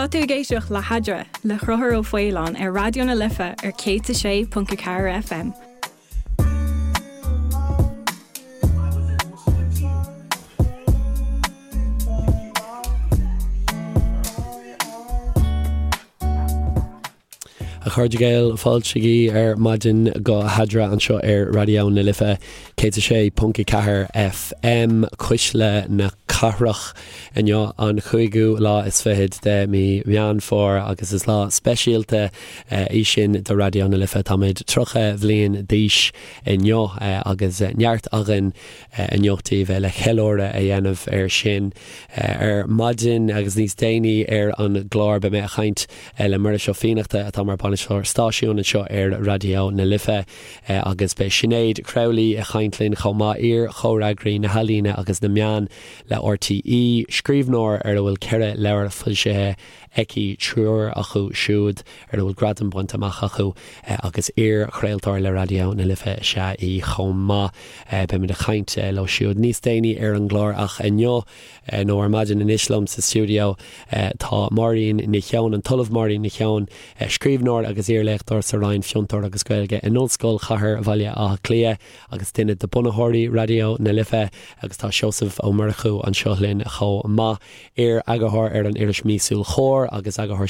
Tá tú ag éisteacht le hEadra le Conchúr Ó Faoláin ar Raidió na Life ar 106.4 FM. A chairde Gael, fáilte ar maidin go hEadra anseo ar Raidió na Life 106.4 FM, Cuisle na Cathrach. Inniu an chúigiú lá is fichead de mí Mheán Fómhair agus is lá speisialta í sin do Raidió na Life. Táimid 30 bhliain d'aois inniu agus neart againn inniu daoibh le ceiliúradh a dhéanamh air sin. Ar maidin agus níos déanaí ar an gclár beidh mé ag caint le Muiris Ó Fiannachta atá mar bainisteoir stáisiúin anseo ar Raidió na Life agus beidh Sinéad Crowley ag caint linn chomh maith, iar-chomhfhreagraí na healaíne agus na meán le RTÉ, scríbhneoir ar a bhfuil 4 leabhar foilsithe aici, triúr acu siúd ar a bhfuil gradaim bainte amach acu agus iar-chraoltóir le Raidió na Life is ea í chomh maith. Beimid ag caint leo siúd níos déanaí ar an gclár ach inniu, nó ar maidin anois liom sa stiúideo tá Máirín Ní Sheoin, an tOllamh Máirín Ní Sheoin, scríbhneoir agus iarléachtóir sa Roinn Fiontar agus Gaeilge in Ollscoil Chathair Bhaile Átha Cliath agus duine de bunaitheoirí Raidió na Life agus tá Seosamh Ó Murchú anseo linn chomh maith, iar-eagarthóir ar an iris míosúil Comhar agus eagarthóir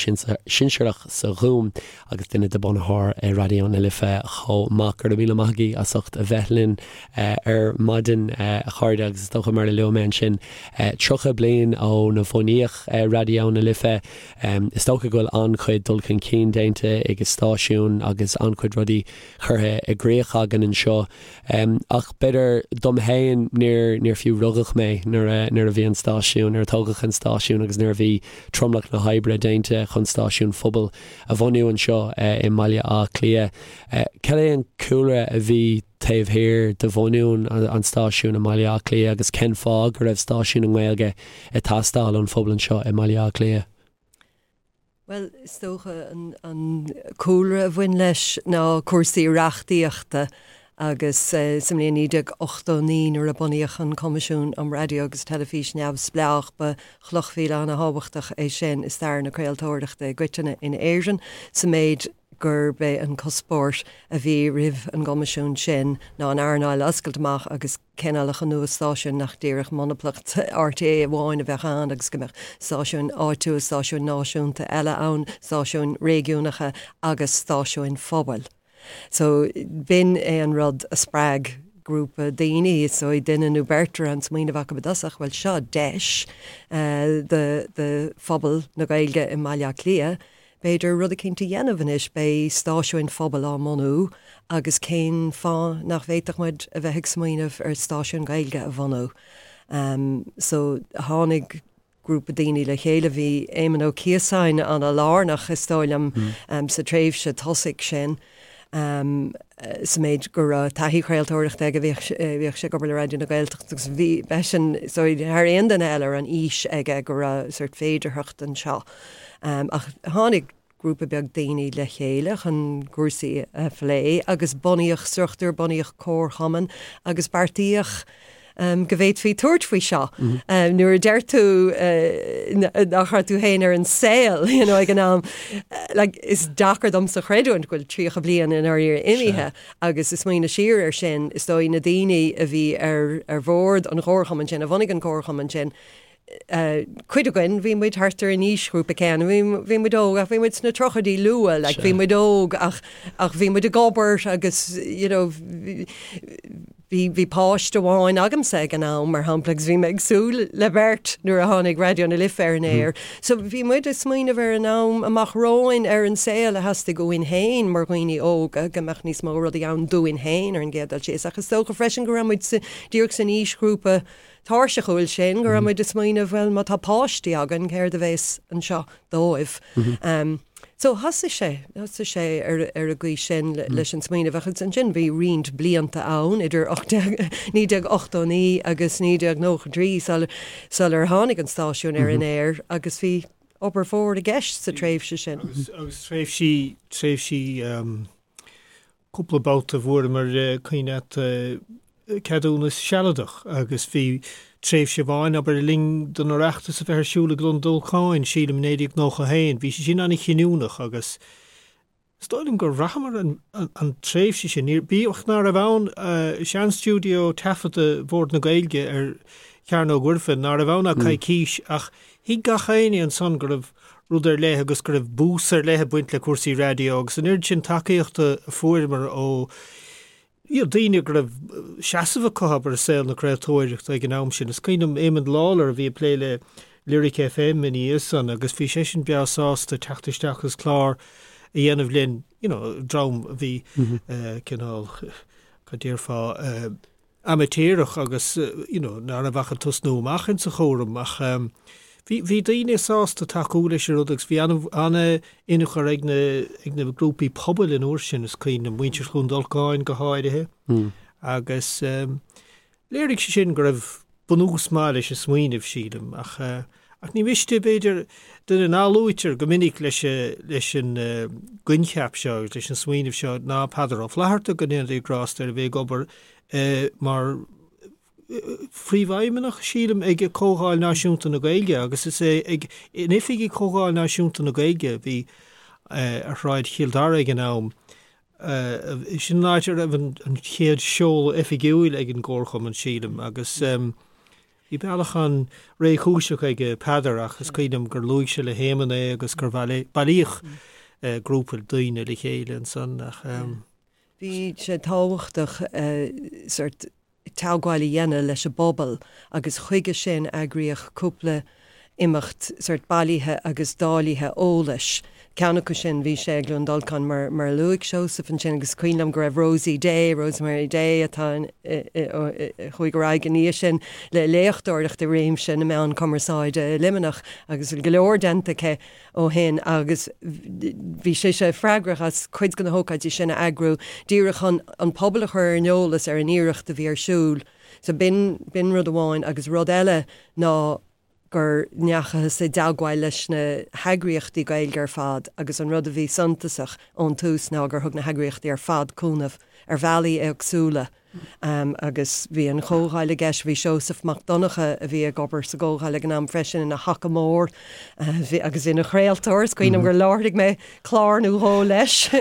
sinsearach sa Ghúm agus duine de bunaitheoirí Raidió na Life chomh maith. Go raibh míle maith agaibh as ucht a bheith linn ar maidin, a chairde, agus is dócha mar a luaigh mé ansin, 30 bliain óna bhunaíodh Raidió na Life, is dócha go bhfuil an-chuid dul chun cinn déanta ag an stáisiún agus an-chuid rudaí curtha i gcrích againn anseo. Ach b'fhéidir dom féin, níor, níor fiú rugadh mé nuair a, nuair a bhí an stáisiún, nuair a tógadh an stáisiún agus nuair a bhí tromlach na hoibre déanta chun stáisiún phobail a bhunú anseo i mBaile Átha Cliath. Cad é an cúlra a bhí taobh thiar de bhunú an stáisiúin i mBaile Átha Cliath agus cén fáth go raibh stáisiún i nGaeilge ag teastáil ón phobal anseo i mBaile Átha Cliath? Bhuel, is dócha an cúlra a bhain leis ná cúrsaí reachtaíochta agus sa mbliain 1989 nuair a bunaíodh an Coimisiún um Raidió agus Teilifís Neamhspleách ba chloch mhíle ana-thábhachtach é sin i stair na craoltóireachta i gcoitinne in Éirinn sa méid gurb é an cuspóir a bhí roimh an gCoimisiún sin ná an earnáil a oscailt amach agus cineálacha nua stáisiún nach díreach monaplacht RTÉ amháin a bheadh ann agus go mbeadh stáisiúin áitiúil, stáisiúin náisiúnta eile ann, stáisiúin réigiúnacha agus stáisiúin phobail. So, b'in é an rud a spreag grúpa daoine, is dóigh duine nó beirt a raibh an smaoineamh acu i dtosach, bhuel seo deis do do phobal na Gaeilge i mBaile Átha Cliath b'fhéidir rud eicínt a dhéanamh anois, beidh stáisiúin phobail á mbunú agus cén fáth nach bhféadfadh muid a bheith ag smaoineamh ar stáisiún Gaeilge a bhunú. So, tháinig grúpa daoine le chéile. Bhí Éamon Ó Ciosáin ana-lárnach, is dóigh liom, sa tréimhse tosaigh sin, sa méid go raibh taithí chraoltóireachta aige, bhíodh sé ag obair le Raidió na Gaeltachta agus bhí, b'eisean, is dóigh, thar aon duine eile a raibh an fhís aige go raibh sórt féidearthacht anseo. Ach tháinig grúpa beag daoine le chéile chun cúrsaí a phlé agus bunaíodh struchtúr, bunaíodh comharchumann agus beartaíodh go bhféadfaí tabhairt faoi seo. Nuair a deir tú nach raibh tú féin ar an saol you know, ag an am, like, is deacair domsa creidiúint go bhfuil 30 bliain i ndáiríre imithe agus ag smaoineamh siar air sin, is dóigh na daoine a bhí ar, ar bhord an chomharchumainn sin, a bhunaigh an comharchumann sin, cuid againn, bhí muid thart ar an aoisghrúpa céanna, bhí, bhí muid óg ach bhí muid sna tríochaidí luath, like, bhí muid óg ach, ach bhí muid ag obair agus, you know, bhí, bhí páiste amháin agamsa ag an am, mar shampla, agus bhí mé ag súil le beirt nuair a tháinig Raidió na Life ar an aer. So bhí muid ag smaoineamh ar an am amach romhainn, ar an saol a theastaigh uainn féin mar dhaoine óga, go mbeadh níos mó rudaí ann dúinn féin ar an gcéad dul síos. Ach is dócha freisin go raibh muid sa, díreach san aoisghrúpa tairseachúil sin, go raibh muid ag smaoineamh, bhuel, má tá páistí againn, céard a bhéas anseo dóibh? So thosaigh sé, thosaigh sé ar ar an gcaoi sin leis an smaoineamh agus ansin bhí roinnt blianta ann idir 1989 agus 1993 sul sular tháinig an stáisiún ar an aer agus bhí obair mhór i gceist sa tréimhse sin. Agus agus tréimhsí tréimhsí cúpla babhta fuaireamar cuimhne agat. ceadúnas sealadach agus bhí tréimhse amháin, abair, le linn don Oireachtas a bheith ar siúl i gCluain Dolcáin, sílim, i 1991, bhí sé sin an-chinniúnach agus is dóigh liom gur bhraitheamar an tréimhse sin, bíodh ná raibh ann sean-stiúideo taifeadta Bhord na Gaeilge ar Chearnóg Mhuirfean, ná raibh ann ach coicís, ach thuig gach éinne ansan go raibh rud ar leith agus go raibh bús ar leith ag baint le cúrsaí raidió agus an oiread sin tacaíochta a fuaireamar ó you know, daoine go raibh seasamh acu, abair, i saol na craoltóireachta ag an am sin. Is cuimhin liom Éamon Lawlor a bhí ag plé le Lyric FM ina dhiaidh san agus bhí seisean breá sásta teacht isteach agus clár a dhéanamh linn, you know, dream a bhí cineál, cad déarfá, amaitéarach agus you know ná raibh ach ag tosnú amach insa chúram ach bhí bhí daoine sásta tacú leis an rud agus bhí an-tionchar ag na ag na grúpaí pobail an uair sin is cuimhin liom muintir Chluain Dolcáin go háirithe agus léirigh sé sin go raibh bunús maith leis an smaoineamh sílim ach ach ní miste b'fhéidir duine ná luaitear go minic leis leis an gcoincheap seo agus leis an smaoineamh seo ná Peadar Ó Flatharta go ndéana Dia grásta air a bhí ag obair mar phríomhfheidhmeannach, sílim, ag Comhdháil Náisiúnta na Gaeilge agus is é ag in oifigí Chomhdháil Náisiúnta na Gaeilge a bhí ar Shráid Chill Dara ag an am. Sin an áit a raibh an chéad seoladh oifigiúil ag an gComharchumann, sílim, agus bhí bealach an-réchúiseach ag Peadar ach is cuimhin liom gur luaigh sé le hÉamonn é agus gur bailíodh grúpa daoine le chéile ansan ach. Bhí sé tábhachtach sórt teagmháil a dhéanamh leis an bpobal agus chuige sin eagraíodh cúpla imeacht sórt bailithe agus dáilithe eolais. Ceann acu sin bhí sé i gCluain Dolcáin mar mar a luaigh Seosamh ansin agus cuimhin liom go raibh Rosie Day, Rosemary Day atá a chuaigh ar aghaidh ina dhiaidh sin le léachtóireacht i réimse na meán cumarsáide i Luimneach agus go leor déanta aici ó shin agus bhí sise freagrach as cuid de na hócáidí sin a eagrú díreach chun an pobal a chur ar an eolas ar an iarracht a bhí ar siúl. So b'in, b'in rud amháin agus rud eile ná gur ndeachathas i dteagmháil leis na heagraíochtaí Gaeilge ar fad agus an rud a bhí suntasach ón tús ná gur thug na heagraíochtaí ar fad cúnamh ar bhealaí éagsúla. Agus bhí an Chomhdháil i gceist, bhí Seosamh Mac Donncha, a bhí ag obair sa gComhdháil ag an am freisin, ina thaca mór agus ina chraoltóir. Is cuimhin liom gur láithrigh mé clár nó dhó leis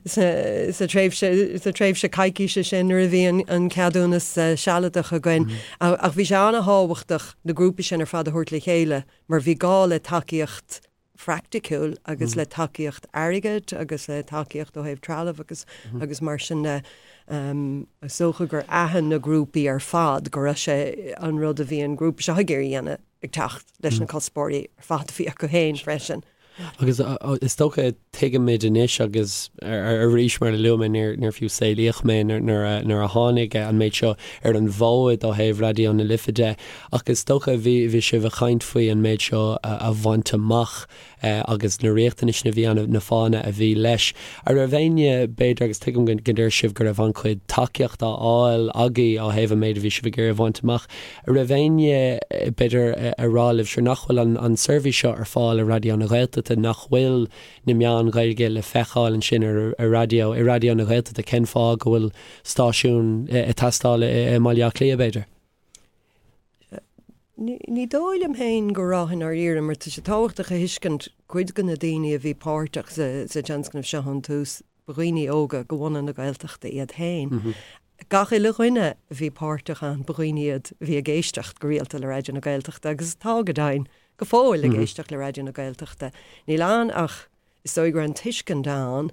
sa tréimhse, sa tréimhse coicíse sin nuair a bhí an ceadúnas sealadach againn. Ach bhí sé an-thábhachtach na grúpaí sin ar fad a thabhairt le chéile mar bhí gá le tacaíocht phraiticiúil agus le tacaíocht airgid agus le tacaíocht ó thaobh trealaimh agus agus mar sin de. Is dócha gur aithin na grúpaí ar fad go raibh sé an rud a bhí an grúpa seo ag iarraidh a dhéanamh ag teacht leis na cuspóirí ar fad a bhí acu féin freisin. Agus is dócha tuigimid anois agus arís mar a luaigh mé níor fiú saolaíodh mé nuair a tháinig an méid seo ar an bhfód ó thaobh Raidió na Life de ach is dócha bhí bhí sibh ag caint faoi an méid seo a bhaint amach agus na riachtanais a bhí ann, na fáthanna a bhí leis. An raibh éinne, b'fhéidir, agus tuigim go ndeir sibh go raibh an-chuid tacaíocht á fháil agaibh ó thaobh an méid a bhí sibh ag iarraidh a bhaint amach, an raibh éinne, b'fhéidir, ag rá libh, sure nach bhfuil an seirbhís seo ar fáil i Raidió na Gaeltachta, nach bhfuil na meáin Ghaeilge le feiceáil ansin ar raidió, i Raidió na Gaeltachta, cén fáth go bhfuil stáisiún ag teastáil i mBaile Átha Cliath, b'fhéidir? Ní dóigh liom féin go raibh i ndáiríre, mar tá sé tábhachtach a thuiscint cuid de na daoine a bhí páirteach sa tionscnamh seo ón tús, ba dhaoine óga de bhunadh na Gaeltachta iad féin. Gach uile dhuine a bhí páirteach ann, ba dhaoine iad a bhí ag éisteacht go rialta le Raidió na Gaeltachta agus atá, go deimhin, go fóill ag éisteacht le Raidió na Gaeltachta. Níl ann ach is dóigh go raibh an tuiscint ann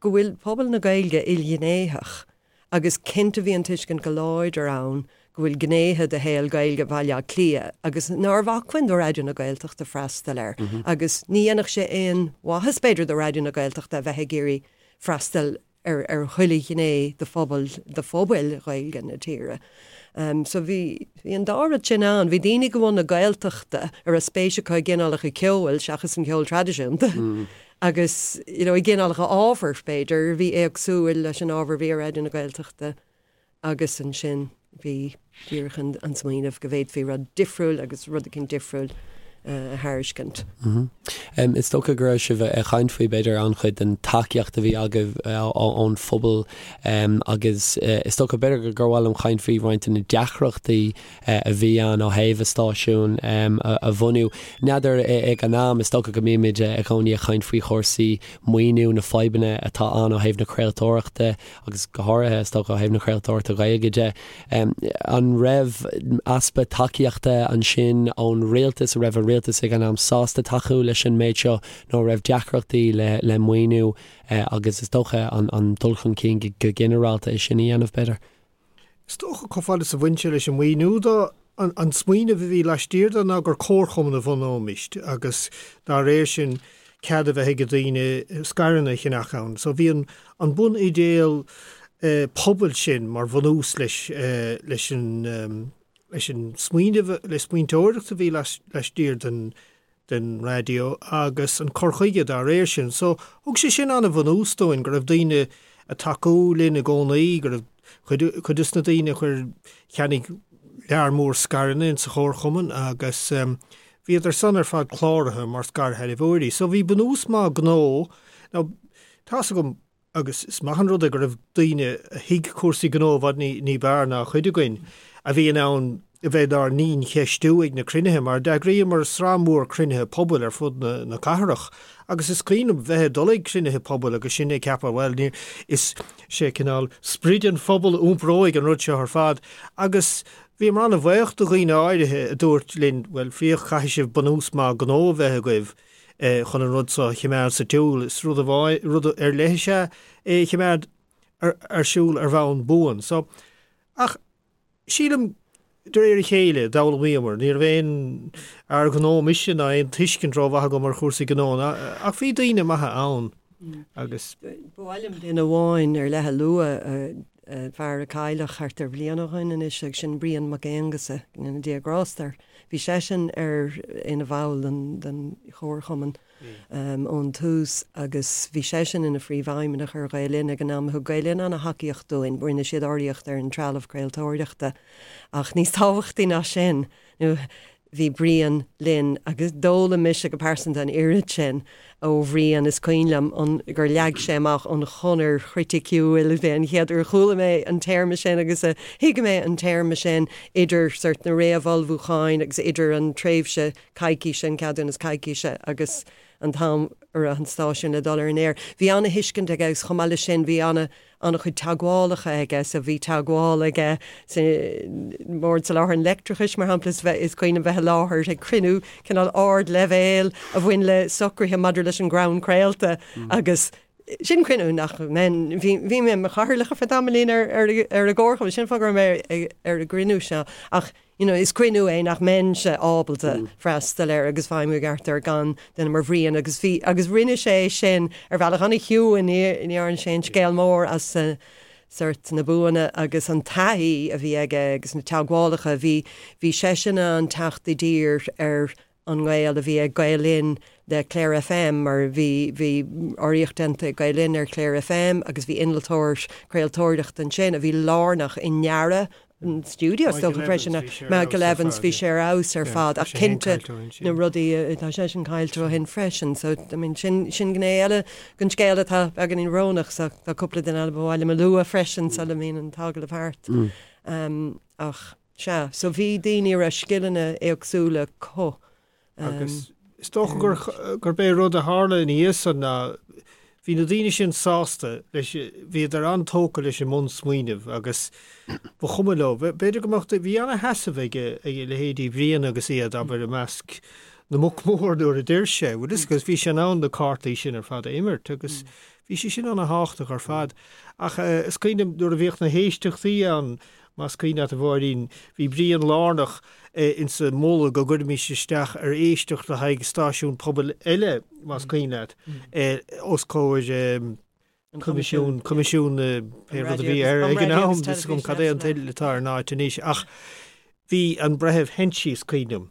go bhfuil pobal na Gaeilge ilghnéitheach agus cinnte bhí an tuiscint go láidir ann go bhfuil gnéithe de shaol Gaeilge Bhaile Átha Cliath agus nárbh acmhainn do Raidió na Gaeltachta freastal air agus ní dhéanfadh sé aon mhaitheas b'fhéidir do Raidió na Gaeltachta a bheith ag iarraidh freastal ar ar chuile ghné de phobal de phobail Ghaeilge na tíre. So bhí bhí an dá rud sin ann. Bhí daoine de bhunadh na Gaeltachta a raibh spéis acu i gcineálacha ceoil seachas an ceol traidisiúnta agus you know i gcineálacha ábhair b'fhéidir a bhí éagsúil leis an ábhar a bhí ar Raidió na Gaeltachta agus ansin bhí díreach an an smaoineamh go bhféadfaí rud difriúil agus rud eicínt difriúil. a thairiscint. Is dócha go raibh sibh ag caint faoi, b'fhéidir, an-chuid den tacaíocht a bhí agaibh ón phobal agus is dócha, b'fhéidir, gur mhaith liom caint faoi roinnt de na deacrachtaí a bhí ann ó thaobh an stáisiún a bhunú. N'fheadar ag an am, is dócha go mbímid i gcónaí ag caint faoi chúrsaí maoiniú, na fadhbanna atá ann ó thaobh na craoltóireachta agus go háirithe, is dócha, ó thaobh na craoltóireachta Gaeilge de. An raibh easpa tacaíochta ansin ón rialtas, an raibh an rialtas ag an am sásta tacú leis an méid seo nó an raibh deacrachtaí le maoiniú agus is dócha an dul chun cinn go ginearálta é sin a dhéanamh, b'fhéidir? Is dócha, chomh fada is a bhain sé leis an maoiniú de, an smaoineamh a bhí laistiar de ná gur comharchumann a bhunóimist agus dá réir sin cead a bheith ag daoine scaireanna a cheannach ann. So bhí an an bun-idéal pobail sin mar bhunús leis leis an leis an smaoineamh, le smaointeoireacht a bhí laistiar den den raidió agus an cur chuige dá réir sin. So, thug sé sin an-bhunús dúinn, go raibh daoine ag tacú linn i gcónaí, go raibh cuid, cuid des na daoine a chuir, cheannaigh lear mór scaireanna insa chomharchumann agus bhíodar san ar fad cláraithe mar scairshealbhóirí. So bhí bunús maith gnó. Now, tá's agam, Agus is maith an rud é go raibh daoine a thuig cúrsaí gnó i bhfad ní b'fhearr ná cuid againn, a bhí in ann a bheith dár ndiancheistiú ag na cruinnithe, mar d'eagraíomar sraith mhór cruinnithe pobail ar fud na cathrach. Agus is cuimhin liom bheith ag dul ag cruinnithe pobail agus sinn ag ceapadh, bhuel, ní, is sé cineál sprid an phobail a iompróidh an rud seo ar fad. Agus bhíomar an-bhaoch de dhaoine áirithe a dúirt linn, bhuel, féach, caithfidh sibh bunús maith gnó a bheith agaibh. chun an rud seo a choimeád sa tsiúl. Is rud amháin, rud ar leith is ea é a choimeád ar siúl ar bhonn buan. So, ach sílim, de réir a chéile, d'fhoghlaimíomar. Ní raibh aon fhear gnó mise ná aon tuiscint rómhaith agam ar chúrsaí gnó, ach bhí daoine maithe ann agus. Ba mhaith liom duine amháin ar leith a lua, fear a cailleadh thart ar bhliain ó shoin anois, agus sin Brian Mac Aonghusa, go ndéana Dia grásta air. Bhí seisean ar ina bhall den den chomharchumann ón tús agus bhí seisean ina phríomhfheidhmeannach ar Ghael Linn ag an am. Thug Gael Linn ana-thacaíocht dúinn, rinne siad urraíocht ar an trealamh craoltóireachta ach níos tábhachtaí ná sin, nó Bhí Brian linn agus d'fhoghlaim mise go pearsanta an oiread sin ó Bhrian. Is cuimhin liom an, gur leag sé amach an chonair chriticiúil, b'é an chéad uair a chuala mé an téarma sin agus a thuig mé an téarma sin, idir sort na réamhullmhúcháin agus idir an tréimhse coicíse, an ceadúnas coicíse agus an t-am a raibh an stáisiún le dul ar an aer. Bhí ana-thuiscint aige agus chomh maith leis sin bhí ana an-chuid teagmhálacha aige, so bhí teagmháil aige sa mBord Soláthair an Leictreachais, mar shampla, is bheith, is cuimhin liom bheith i láthair ag cruinniú cineál ardleibhéil a bhain le socruithe maidir leis an gcrann craolta agus sin cruinniú nach mbeinn, bhí, bhí mé i mo chathaoirleach ar feadh tamaillín ar, ar, ar an gcomharchumann, sin an fáth go raibh mé ar an gcruinniú seo ach you know, is cruinniú é nach mbeinnse ábalta freastal air agus feidhmiú i gceart air gan duine mar Bhrian agus bhí, agus rinne sé sin ar bhealach an-chiúin, ní, ní dhearna sé aon scéal mór as sort na buanna agus an taithí a bhí aige agus na teagmhálacha, bhí, bhí seisean in ann teacht i dtír ar an ngaol a bhí ag Gael Linn le Clare FM mar bhí bhí urraíocht déanta ag Gael Linn ar Clare FM agus bhí innealtóir craoltóireachta ansin a bhí lárnach i ndearadh an stiúideo is dócha freisin Michael Evans bhí sé ar fheabhas ar fad ach cinnte na rudaí tá seisean caillte ó shin freisin so I mean sin sin gné eile den scéal atá beagáinín brónach so tá cúpla duine eile ba mhaith liom a lua freisin sula mbíonn an t-agallamh thart ach Sea, so bhí daoine a raibh scileanna éagsúla acu. Agus is dócha gur, gurb é rud a tharla ina dhiaidh san ná bhí na daoine sin sásta leis, bhíodar an-tógtha leis an mbunsmaoineamh agus ba chuma leo. B'fhéidir go mbeadh, bhí ana-sheasamh ag, ag leithéidí Bhriain agus iad, abair, i measc na mboc mór nuair a d'oir sé, bhfuil fhios agat, agus bhí sé in ann na cártaí sin ar fad a imirt agus bhí sé sin ana-thábhachtach ar fad. Ach is cuimhin liom nuair a bhíodh na héisteachtaí ann, Más cuimhin leat, a Mháirín, bhí Brian lárnach insa mholadh go gcuirfimis isteach ar éisteacht le haghaidh stáisiún pobail eile, más cuimhin leat, os comhair Coimisiún, Coimisiún na, pé rud a bhí air ag an am, níl 'fhios agam cad é an teideal atá ar an áit anois, ach bhí an Breitheamh Henchy, is cuimhin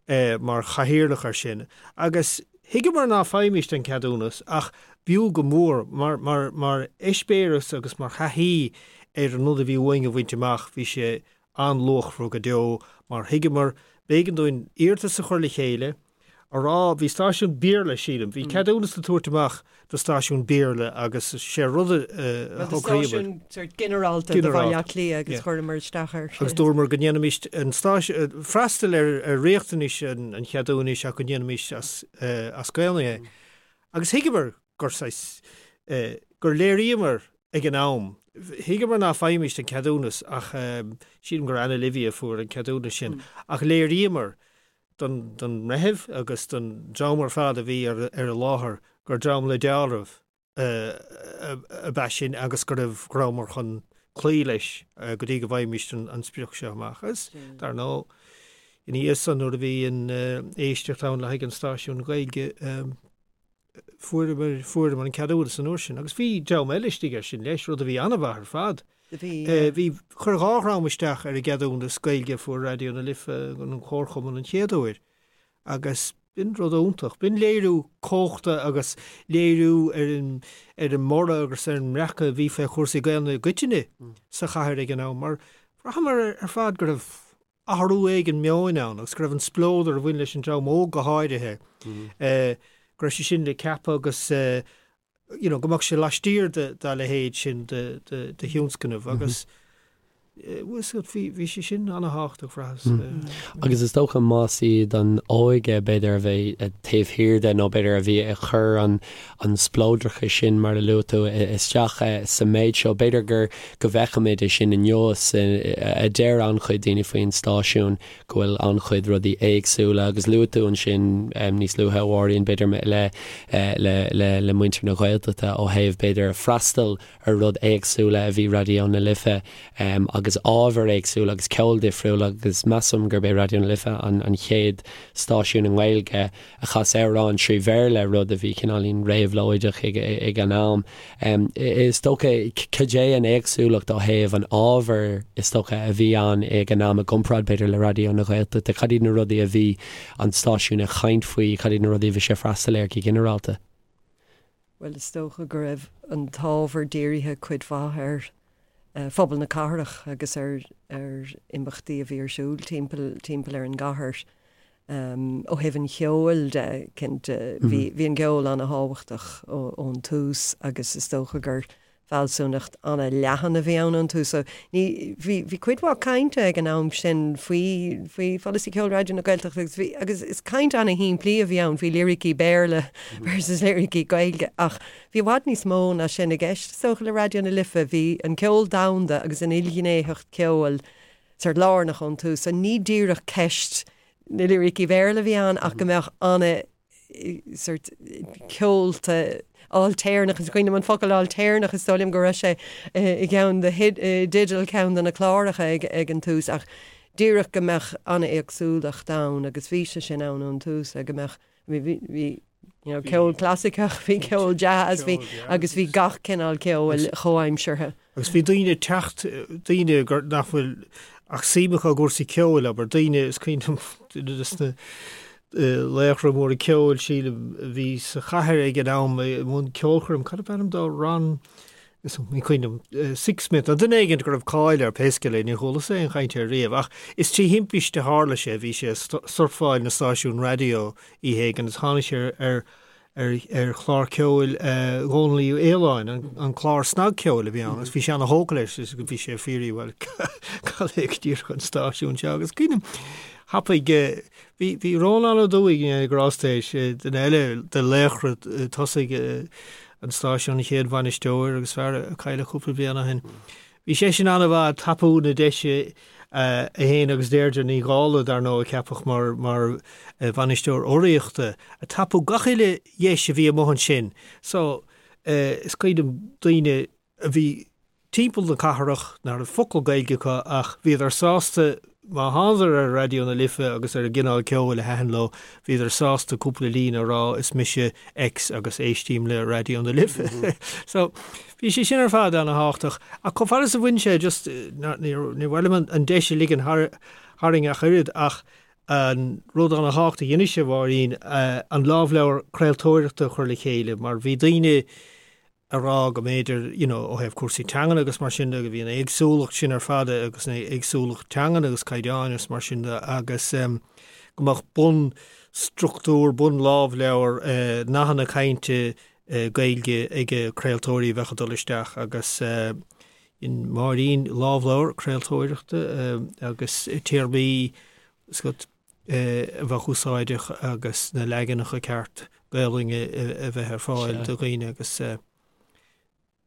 liom, mar chathaoirleach air sin agus thuigeamar ná faighimist an ceadúnas ach b'fhiú go mór mar, mar, mar eispéireas agus mar thaithí ar an rud a bhí uainn a bhaint amach bhí sé an-luachmhar go deo mar thuigeamar b'éigean dúinn iarratas a chur le chéile. a rá, bhí stáisiún Béarla, sílim, bhí ceadúnas le tabhairt amach do stáisiún Béarla agus sé rud a shocraíomar. Stáisiún sort ginearálta do Bhaile Átha Cliath agus chuireamar isteach air. Agus dúramar go ndéanfaimis an stáisiún, freastal ar riachtanais an cheadúnais ach go ndéanfaimis as Gaelainn é. Agus thuigeamar gur saghas, gur léiríomar ag an am, thuigeamar ná faighimist an ceadúnas ach sílim gur Anna Livia a fuair an ceadúnas sin, ach léiríomar don mbreitheamh agus don dream ar fad a bhí ar an láthair gur dream le dealramh ab ea sinn agus go raibh, go rabhamar chun cloí leis go dtí go bhfaighimist an sprioc seo amach. Agus, dar ndóigh, ina dhiaidh san nuair a bhí an éisteacht ann le haghaidh an stáisiún Gaeilge, fuaireamar, fuaireamar an ceadúnas an uair sin agus bhí dream eile istigh air sin leis, rud a bhí an-mhaith ar fad. Bhí. Bhí, chuir 2 dhream isteach ar an gceadúnas Gaeilge a fuair Raidió na Life, an Comharchumann an chéad uair agus b'in rud iontach. B'in léiriú cumhachta agus léiriú ar an, ar an mborradh agus ar an mbreacadh a bhí fé chúrsaí Gaelainne i gcoitinne sa chathair ag an am mar bhraitheamar ar fad go raibh athrú éigin meoin ann agus go raibh an spleodar a bhain leis an dream óg go háirithe, go raibh sé sin le ceapadh agus you know go mbeadh sé laistiar dá leithéid sin de thionscnamh agus bhí bhí sé sin ana-thábhachtach bhraitheas. Agus is dócha más iad an óige b'fhéidir a bheidh taobh thiar de nó b'fhéidir a bhí ag cur an an spleodrachas sin, mar a luaigh tú, isteach sa méid seo. B'fhéidir gur go bhfeicimid é sin inniu, a deir an-chuid daoine faoin stáisiún, go bhfuil an-chuid rudaí éagsúla agus luaigh tú ansin níos luaithe, a Mháirín, b'fhéidir le le le le muintir na Gaeltachta ó thaobh b'fhéidir freastal ar rud éagsúla a bhí Raidió na Life agus ábhair éagsúla agus ceol difriúil agus measaim gurb é Raidió na Life an an chéad stáisiún i nGaeilge a chas amhráin trí Bhéarla, rud a bhí cineáilín réabhlóideach ag an am. Is dócha, cad é an éagsúlacht ó thaobh an ábhair is dócha a bhí ann ag an am i gcomparáid b'fhéidir le Raidió na Gaeltachta? Cad iad na rudaí a bhí an stáisiún ag caint faoi, cad iad na rudaí a bhí sé ag freastal air go ginearálta? Bhuel, is dócha go raibh an t-ábhar dírithe cuid mhaith ar phobal na cathrach agus ar ar imeachtaí a bhí ar siúl timpeall timpeall ar an gcathair. Ó thaobh an cheoil de, cinnte, bhí bhí an ceol ana-thábhachtach ón tús agus is dócha gur fealsúnacht ana-leathan a bhí ann ón tús. So ní, bhí, bhí cuid mhaith cainte ag an am sin faoi, faoi pholasaí ceoil Raidió na Gaeltachta agus bhí, agus is caint ana-shimplí a bhí ann faoi liricí Béarla versus liricí Gaeilge ach bhí i bhfad níos mó ná sin i gceist is dócha le Raidió na Life. Bhí an ceol domhanda agus an ilghnéitheacht ceoil sort lárnach ón tús. So ní díreach ceist na liricí Béarla a bhí ann ach go mbeadh ana sort ceolta ailtéarnach, is cuimhin liom an focal ailtéarnach, is dóigh liom go raibh sé i gceann de dteideal ceann de na cláracha ag ag an tús ach díreach go mbeadh an-éagsúlacht ann agus bhí sé sin ann ón tús go mbeadh bhí bhí bhí you know, ceol clasaiceach, bhí ceol jazz, bhí agus bhí gach cineál ceoil chomhaimseartha. Agus bhí daoine ag teacht, daoine gur, nach bhfuil ach suim acu i gcúrsaí ceoil, abair, daoine, is cuimhin liom duine des na laochra móra ceoil, sílim, a bhí sa chathair ag an am i mbun ceolchoirm, cad ab ainm dó, Ron, is ní cuimhin liom, Sixsmith, nó duine éigin go raibh cáil air, pé scéal é, níor chualas-sa aon chaint air riamh, ach is trí thimpiste a tharla sé, bhí sé ag surfáil na stáisiún raidió oíche éigin agus tháinig sé ar ar chlár ceoil Dhónaill Uí Fhaoláin, an clár snagcheoil a bhí ann, agus bhí sé ana-thógtha leis is bhí sé ag fiafraí, bhuel, cad é go díreach an stáisiún seo? Agus cuimhním, thapaigh, bhí, bhí Rónán Ó Dubhthaigh, go ndéana grásta é, duine eile de laochra tosaigh an stáisiúin, an chéad bhainisteoir agus fear a cailleadh cúpla bliain ó shin. Bhí seisean an-mhaith ag tapú na deise, é féin agus Deirdre Ní Dhálaigh, dar ndóigh, a ceapadh mar mar bhainisteoir urraíochta, ag tapú gach uile dheis a bhí amuigh ansin. So, is cuimhin liom daoine a bhí timpeall na cathrach nach raibh focal Gaeilge acu ach bhíodar sásta Má thánadar ar Raidió na Life agus ar an gcineál ceoil a thaitin leo, bhíodar sásta cúpla líne a rá, is mise X agus éistím le Raidió na Life. So, bhí sé sin ar fad ana-thábhachtach. Ach chomh fada is a bhain sé, just, níor mhaith liom an deis a ligean tharainn ach oiread, ach an rud ana-thábhachtach a dheinis, a Mháirín, an lámhleabhar craoltóireachta a chur le chéile, mar bhí daoine, a rá go mb'fhéidir, you know, ó thaobh cúrsaí teangan agus mar sin de, go bhí an éagsúlacht sin ar fad agus an éagsúlacht teangan agus caighdeáin agus mar sin de agus em. go mbeadh bunstruchtúr, bunlámhleabhar, nathanna cainte Gaeilge ag craoltóirí a bheadh ag dul isteach agus dhein Máirín lámhleabhar craoltóireachta agus téarmaí a bheadh úsáideach agus na leaganacha ceart Gaolainne a bheith ar fáil do dhaoine agus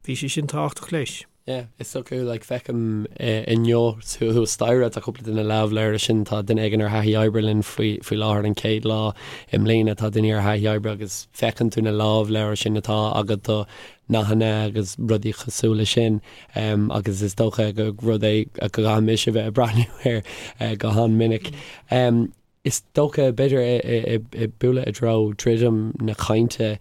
Bhí sé sin tábhachtach leis. Yeah, is dócha, like, feicim inniu thuas staighre, tá cúpla de na lámhleabhair sin, tá duine éigin ar thaithí oibre linn faoi, faoi láthair an chéad lá i mbliana, tá duine ar thaithí oibre agus feiceann tú na lámhleabhair sin atá agat do nathanna agus rudaí cosúil leis sin agus is dócha gur rud é go gcaithfidh mise a bheith ag breathnú air go han-mhinic. Is dócha, b'fhéidir, ag bualadh i dtreo druidim na cainte,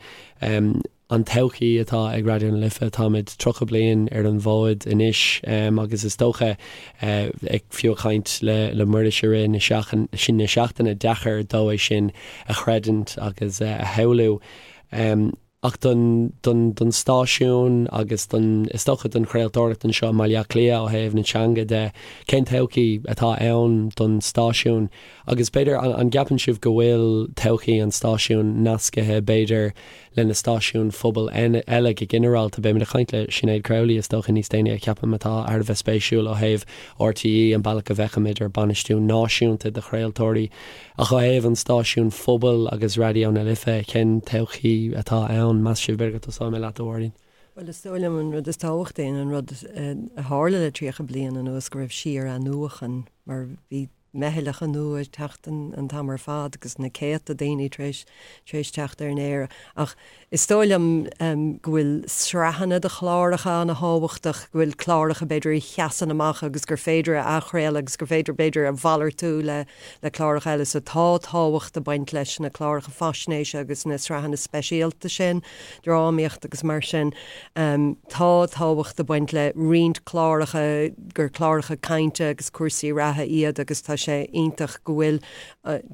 an todhchaí atá ag Raidió na Life, táimid 30 bliain ar an bhfód anois agus is dócha, ag fiú ag caint le Muiris i rith na seachtaine, deacair dó é sin a chreidiúint agus a shamhlú. Ach don, don, don stáisiún agus don, is dócha don chraoltóireacht anseo i mBaile Átha Cliath ó thaobh na teanga de, cén todhchaí atá ann don stáisiún? Agus b'fhéidir, an, an gceapann sibh go bhfuil todhchaí an stáisiúin nascaithe b'fhéidir le na stáisiúin phobail eile go ginearálta? Beimid ag caint le Sinéad Crowley is dócha níos déanaí a cheapaim atá thar a bheith spéisiúil ó thaobh RTÉ, an bealach a bhfeicimid ar bainistiú náisiúnta de chraoltóirí. Ach ó thaobh an stáisiúin phobail agus Raidió na Life, cén todhchaí atá ann, meas sibh? B'fhéidir go dtosóidh mé leat, a Mháirín. Bhuel, is dóigh liom an rud is tábhachtaí an rud a tharla le 30 bliain anuas go raibh síor-athnuachan mar bhí meithleacha nua ag teacht an t-am ar fad agus na céadta daoine tar éis tar éis teacht ar an aer. Ach Is dóigh liom go bhfuil sraitheanna de chláracha an-tábhachtach, go bhfuil cláracha b'fhéidir a sheasann amach agus gur féidir a athchraoladh agus gur féidir b'fhéidir a mhalartú le le cláracha eile. So tá tábhacht ag baint leis na cláracha faisnéise agus na sraitheanna speisialta sin, drámaíocht agus mar sin. Tá tábhacht ag baint le roinnt cláracha gur cláracha cainte agus cúrsaí reatha iad agus tá sé iontach go bhfuil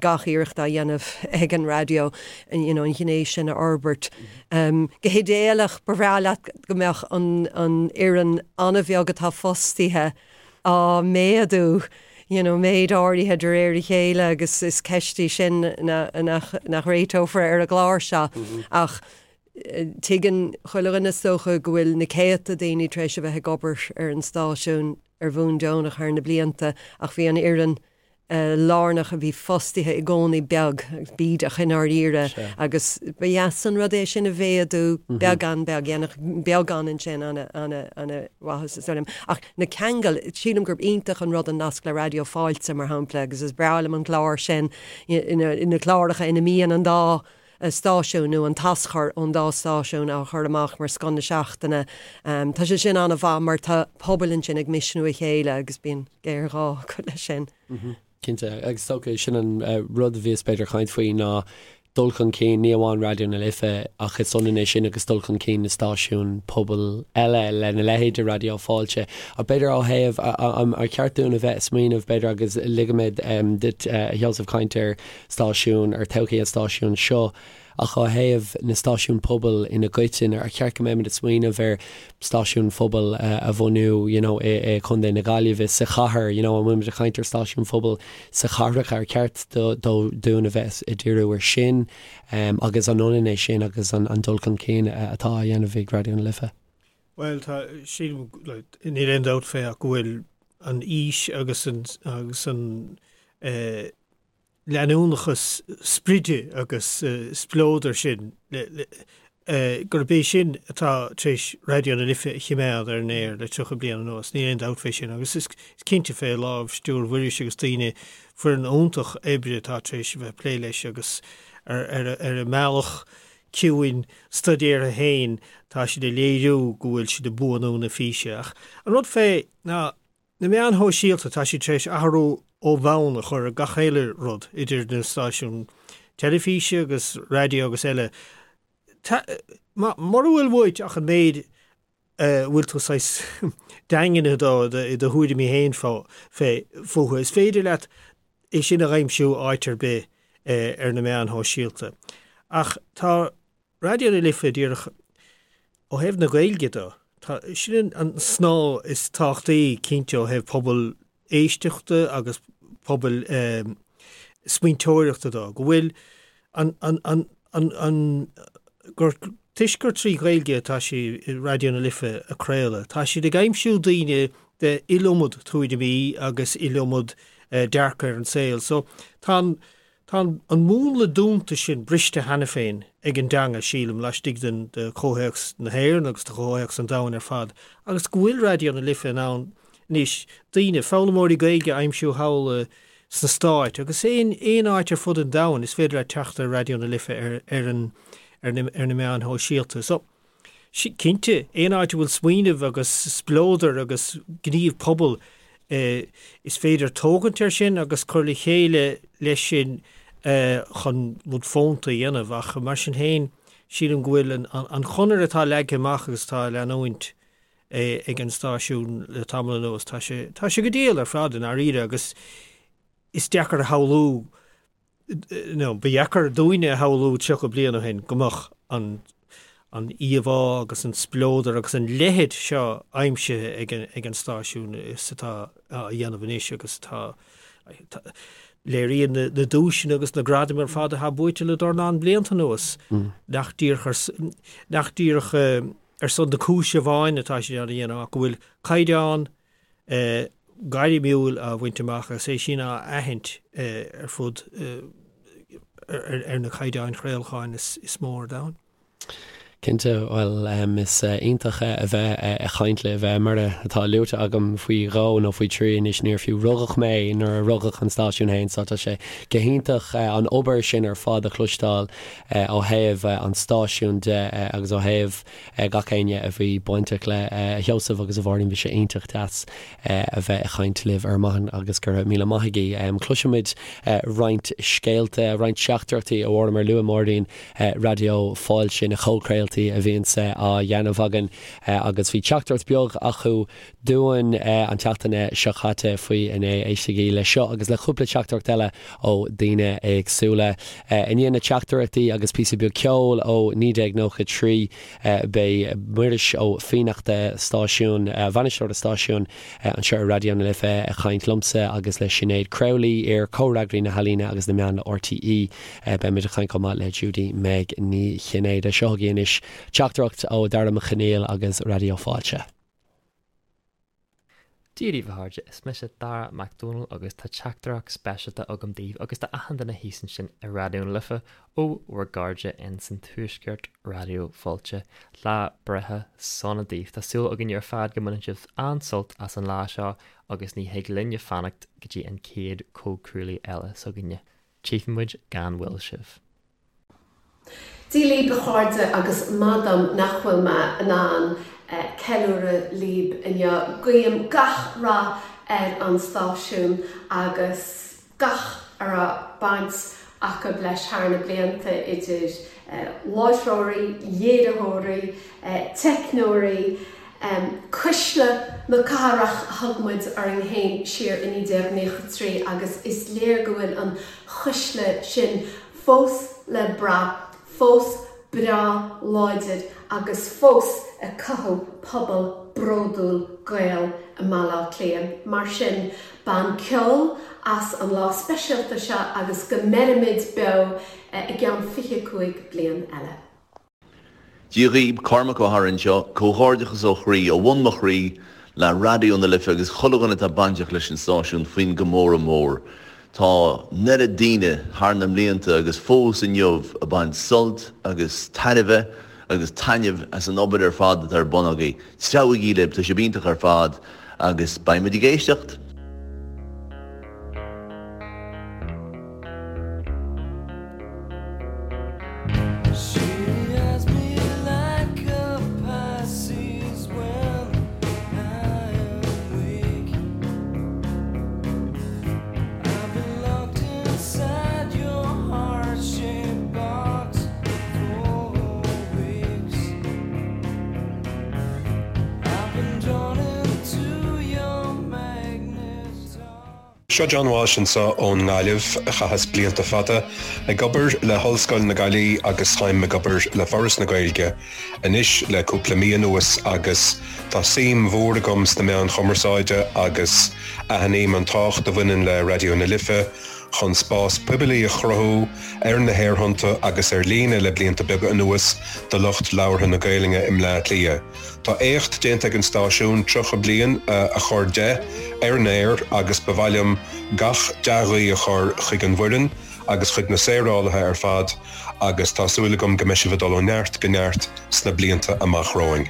gach iarracht á dhéanamh ag an raidió you know an ghné sin a fhorbairt. Go hidéalach ba bhreá leat go mbeadh an an fhoireann an-bheag atá fostaithe á méadú you know méid áirithe de réir a chéile agus is ceist í sin nach nach réiteofar ar an gclár seo ach tuigeann chuile dhuine is dócha go bhfuil na céadta daoine tar éis a bheith ag obair ar an stáisiún ar bhonn deonach thar na blianta ach bhí an fhoireann lárnach a bhí fostaithe i gcónaí beag bídeach i ndáiríre agus ba dheas an rud é sin a mhéadú beagán beag, dhéanfadh beagán ansin an-mhaitheas is dóigh liom. Ach na ceangail, sílim gurb iontach an rud an nasc le Raidió Fáilte mar shampla agus is breá liom an clár sin, na cláracha ina mbíonn an dá stáisiún nó an t-aschur ón dá stáisiún á chur amach mar scoth na seachtaine. Tá sé sin an-mhaith mar tá pobail ansin ag misniú a chéile agus bíonn géarghá acu leis sin. Cinnte, agus is dócha sin an rud a bhíos b'fhéidir ag caint faoi ná dul chun cinn, ní amháin Raidió na Life ach is ionann é sin agus dul chun cinn na stáisiún pobail eile lena leithéid de Raidió Fáilte. Ach b'fhéidir ó thaobh, ar cheart dúinn a bheith ag smaoineamh b'fhéidir agus ligfidh mé duit a Sheosaimh caint ar stáisiún, ar todhchaí an stáisiúin seo, ach ó thaobh na stáisiún pobail ina gcoitinne, ar cheart go mbeimid ag smaoineamh ar stáisiún phobail a bhunú you know i Contae na Gaillimhe, sa chathair, you know an bhfuilimid ag caint ar stáisiún phobail sa chathracha, ar cheart dúinn a bheith ag díriú ar sin agus an ionann é sin agus an dul chun cinn atá á dhéanamh ag Raidió na Life? Bhuel, tá, sílim, níl aon dabht fé ach go bhfuil an fhís agus an, agus an eh, leanúnachas spride agus spleodair sin, gurb é sin atá tar éis Raidió na Life a choimeád ar an aer le 30 bliain anuas, níl aon dabht fé sin. Agus is cinnte fé lámhstiúir Mhuiris agus daoine, foireann iontach oibre atá tar éis a bheith ag plé leis agus ar a mbealach ciúin stuidéartha féin tá siad ag léiriú go bhfuil siad ag buanú na físe. Ach an rud fé ná Na meáin shóisialta, tá siad tar éis athrú ó bhonn a chur ar gach uile rud, idir na stáisiúin teilifíse agus raidió agus eile. Mura bhfuil uait ach an méid a bhfuil tú saghas daingnithe dó i do thuairimí féin fúthu, is féidir leat é sin a aimsiú áit ar bith ar na meáin shóisialta. Ach tá Raidió na Life díreach ó thaobh na Gaeilge de, tá, sin an snáth is tábhachtaí cinnte ó thaobh pobal éisteachta agus pobal. smaointeoireachta dó, go bhfuil an, an, an, an, an, gur, toisc gur 3 Ghaeilge atá sí i Raidió na Life ag craoladh, tá siad ag aimsiú daoine de iliomad tuairimí agus iliomad dearcadh ar an saol. So tá an, tá an, an múnla dúnta sin briste cheana féin ag an dteanga, sílim, laistigh den, de chomhthéacs na hÉireann agus de chomhthéacs an domhain ar fad, agus go bhfuil Raidió na Life in ann anois daoine, foghlaimeoirí Gaeilge a aimsiú thall i, sna Stáit agus aon aon áit ar fud an domhain is féidir leat teacht ar Raidió na Life ar ar an ar na ar na meáin shóisialta. So, cinnte, aon áit a bhfuil smaoineamh agus spleodar agus gníomh pobail eh, is féidir tógaint air sin agus cur le chéile leis sin eh, chun rud fónta a dhéanamh ach mar sin féin sílim go bhfuil an, an, an chonair atá leagtha amach agus atá á leanúint ag an stáisiún le tamall anuas. Tá sé, tá sé go diail ar fad i ndáiríre agus is deacair a shamhlú, nó ba dheacair dúinne a shamhlú 30 bliain ó shin go mbeadh an, an íomhá agus an spleodar agus an leithead seo aimsithe ag an, ag an stáisiún is atá á dhéanamh anois agus atá, léiríonn na, na duaiseanna agus na gradaim ar fad atá buaite le dornán blianta anuas nach díreach ar, nach díreach ar son na cúise amháin atá siad á dhéanamh ach go bhfuil caighdeán gairmiúil á bhaint amach agus é sin á aithint ar fud ar na caighdeáin chraolacháin is mó ar domhan. Cinnte, bhuel is iontach a bheith ag caint libh. Mar atá luaite agam faoi dhó nó faoi thrí anois, níor fiú rugadh mé nuair a rugadh an stáisiún féin so tá sé go hiontach an obair sin ar fad a chloisteáil ó thaobh an stáisiúin de agus ó thaobh gach éinne a bhí bainteach le, a Sheosaimh agus a Mháirín, bhí sé iontach deas a bheith ag caint libh ar maidin agus go raibh míle maith agaibh. Cloisfimid roinnt scéalta, roinnt teachtaireachtaí ó Fhóram ar luaigh Máirín Raidió Fáilte, na comhchraoltaí a bhíonns á dhéanamh againn agus bhí teachtaireacht beag acu dúinn an tseachtain seo caite faoi inné. Éistigí le seo agus le cúpla teachtaireacht eile ó daoine éagsúla. I ndiaidh na teachtaireachtaí agus píosa beag ceoil ó 1993 beidh Muiris Ó Fiannachta, stáisiún, bainisteoir an stáisiúin anseo ar Raidió na Life ag caint liomsa agus le Sinéad Crowley, iar Comhfhreagraí na hEalaíne agus na Meán le RTÉ. Beimid ag caint chomh maith le Judy Meg Ní Chinnéide. Seo chugaibh anois teachtaireacht ó Dara Mac Conaill agus Raidió Fáilte. Dia daoibh a chairde, is mise Dara Mac Dónaill agus tá teachtaireacht speisialta agam daoibh agus do achan duine thíos ansin i Raidió na Life ó bhur gcairde in san Tuaisceart Raidió Fáilte. Lá breithe sona daoibh. Tá súil againne ar fad go mbaineann sibh an-sult as an lá seo agus ní thig linne fanacht go dtí an chéad comhchraoladh eile s'againne. Tchífidh muid gan mhoill sibh. Dia líb a chairde agus maith dom nach bhfuil mé in ann ceiliúradh líb inniu. Guím gach rath ar an stáisiún agus gach a raibh baint acu leis thar na blianta idir láithreoirí, léiritheoirí, teicneoirí, Cuisle na cathrach a thug muid orainn féin siar i 1993 agus is léir go bhfuil an chuisle sin fós le brath, fós breá láidir agus fós ag cothú pobal bródúil Gael i mBaile Átha Cliath. Mar sin, bain ceol as an lá speisialta seo agus go mbeirimid beo i gceann 25 bliain eile. Dia dhaoib, Cormac Ó hEadhra anseo, comhghairdeachas ó chroí, ó bhun mo chroí, le Raidió na Life agus chuile dhuine atá bainteach leis an stáisiún faoin gcomóradh mór. Tá an oiread daoine thar na mblianta agus fós inniu ag baint sult agus tairbhe agus taitneamh as an obair ar fad atá ar bun agaibh. Treabhaigí libh, tá sibh iontach ar fad agus beidh muid ag éisteacht! Seo John Walsh anseo ón nGaillimh. Chaitheas blianta fada ag obair le hOllscoil na Gaillimhe agus táim ag obair le Foras na Gaeilge anois le cúpla mí anuas agus tá suim mhór agam sna meáin chumarsáide agus aithním an tábhacht a bhaineann le Raidió na Life. chun spás poiblí a chruthú ar na haerthonnta agus ar líne le blianta beaga anuas do lucht labhartha na Gaelainne i mBleá Cliath. Tá éacht déanta ag an stáisiún 30 bliain a chur de ar an aer agus ba mhaith liom gach dea-ghuí a chur chuig an bhfoireann agus chuig na saorálaithe ar fad agus tá súil agam go mbeidh sibh ag dul ó neart go neart sna blianta amach romhainn.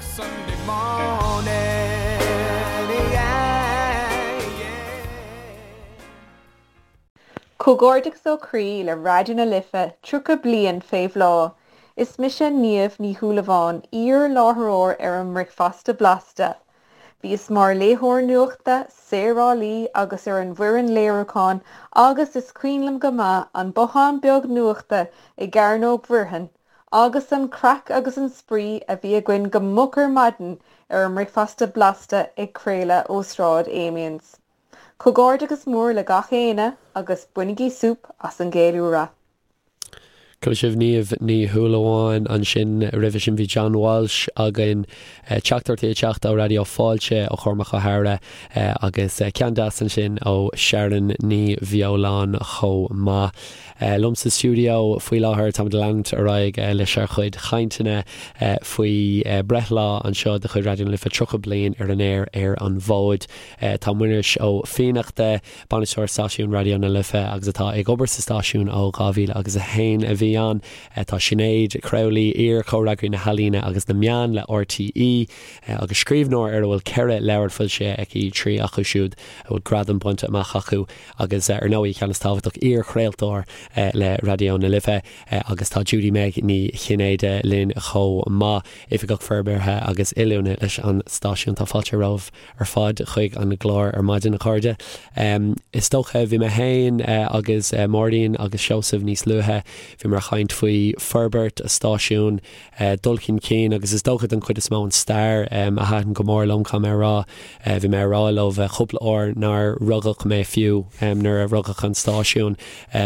Comhghairdeachas ó chroí le Raidió na Life 30 bliain fé bhláth. Is mise Niamh Ní Shúilleabháin, iar-láithreoir ar an mBricfeasta Blasta. Bhíos mar léitheoir nuachta, saorálaí agus ar an bhfoireann léiriúcháin agus is cuimhin liom go maith an bothán beag nuachta i gCearnóg Mhuirfean agus an craic agus an spraoi a bhí againn go moch ar maidin ar an mBricfeasta Blasta ag craoladh ó Sráid Amiens. Comhghairdeachas mór le gach éinne agus bainigí súp as an gceiliúradh. Chuala sibh Niamh Ní Shúilleabháin ansin. Roimhe sin bhí John Walsh againn. Teachtaireachtaí ag teacht ó Raidió Fáilte ó Chormac Ó hEadhra agus ceann deas ansin ó Sharon Ní Bheoláin chomh maith. Liom sa stiúideo faoi láthair táimid ag leanúint ar aghaidh leis ár chuid chainteanna faoi breithlá anseo de chuid Raidió na Life 30 bliain ar an aer ar an bhfód. Tá Muiris Ó Fiannachta, Bainisteoir Stáisiún Raidió na Life agus atá ag obair sa stáisiún ó 2001 a bhí ann. Tá Sinéad Crowley, iar-chomhfhreagraí na healaíne agus na meán le RTÉ agus scríbhneoir ar a bhfuil 4 leabhar foilsithe aici, 3 acu siúd a bhfuil gradam bainte amach acu agus ar ndóigh, ceann is tábhachtach, iar-chraoltóir le Raidió na Life agus tá Judy Meg Ní Chinnéide linn chomh maith, Oifigeach Forbartha agus Oiliúna leis an stáisiún. Tá fáilte romhaibh. ar fad chuig an gclár ar maidin, a chairde. Is dócha, bhí mé féin agus Máirín agus Seosamh níos luaithe, bhíomar ag caint faoi forbairt an stáisiúin, dul chun cinn agus is dócha don chuid is mó an stair a thaitin go mór liom, caithfidh mé a rá. Bhí mé ag rá leo cúpla uair nár rugadh mé fiú nuair a rugadh an stáisiún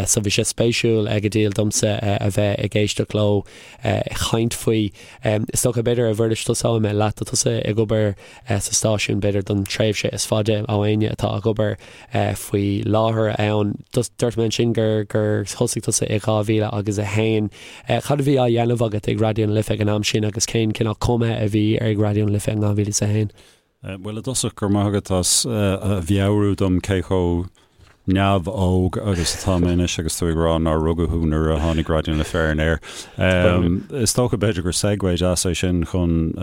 so bhí sé spéisiúil go diail domsa a bheith ag éisteacht leo ag caint faoi. Is dócha, b'fhéidir, a Mhuiris, tosóidh mé leat, tá tusa ag obair sa stáisiún, b'fhéidir don tréimhse is faide ó éinne atá ag obair faoi láthair ann. Dúirt mé ansin gur gur thosaigh tusa i 2000 agus 1. Cad a bhí á dhéanamh agat ag Raidió na Life ag an am sin agus cén cineál cuma a bhí ar Raidió na Life in 2001? Bhuel, i dtosach, go raibh maith agat as a mheabhrú dom cé chomh neamh-óg agus atá mé anois agus tú ag rá nár rugadh thú nuair a tháinig Raidió na Life ar an aer. Is dócha b'fhéidir gur segue deas é sin chun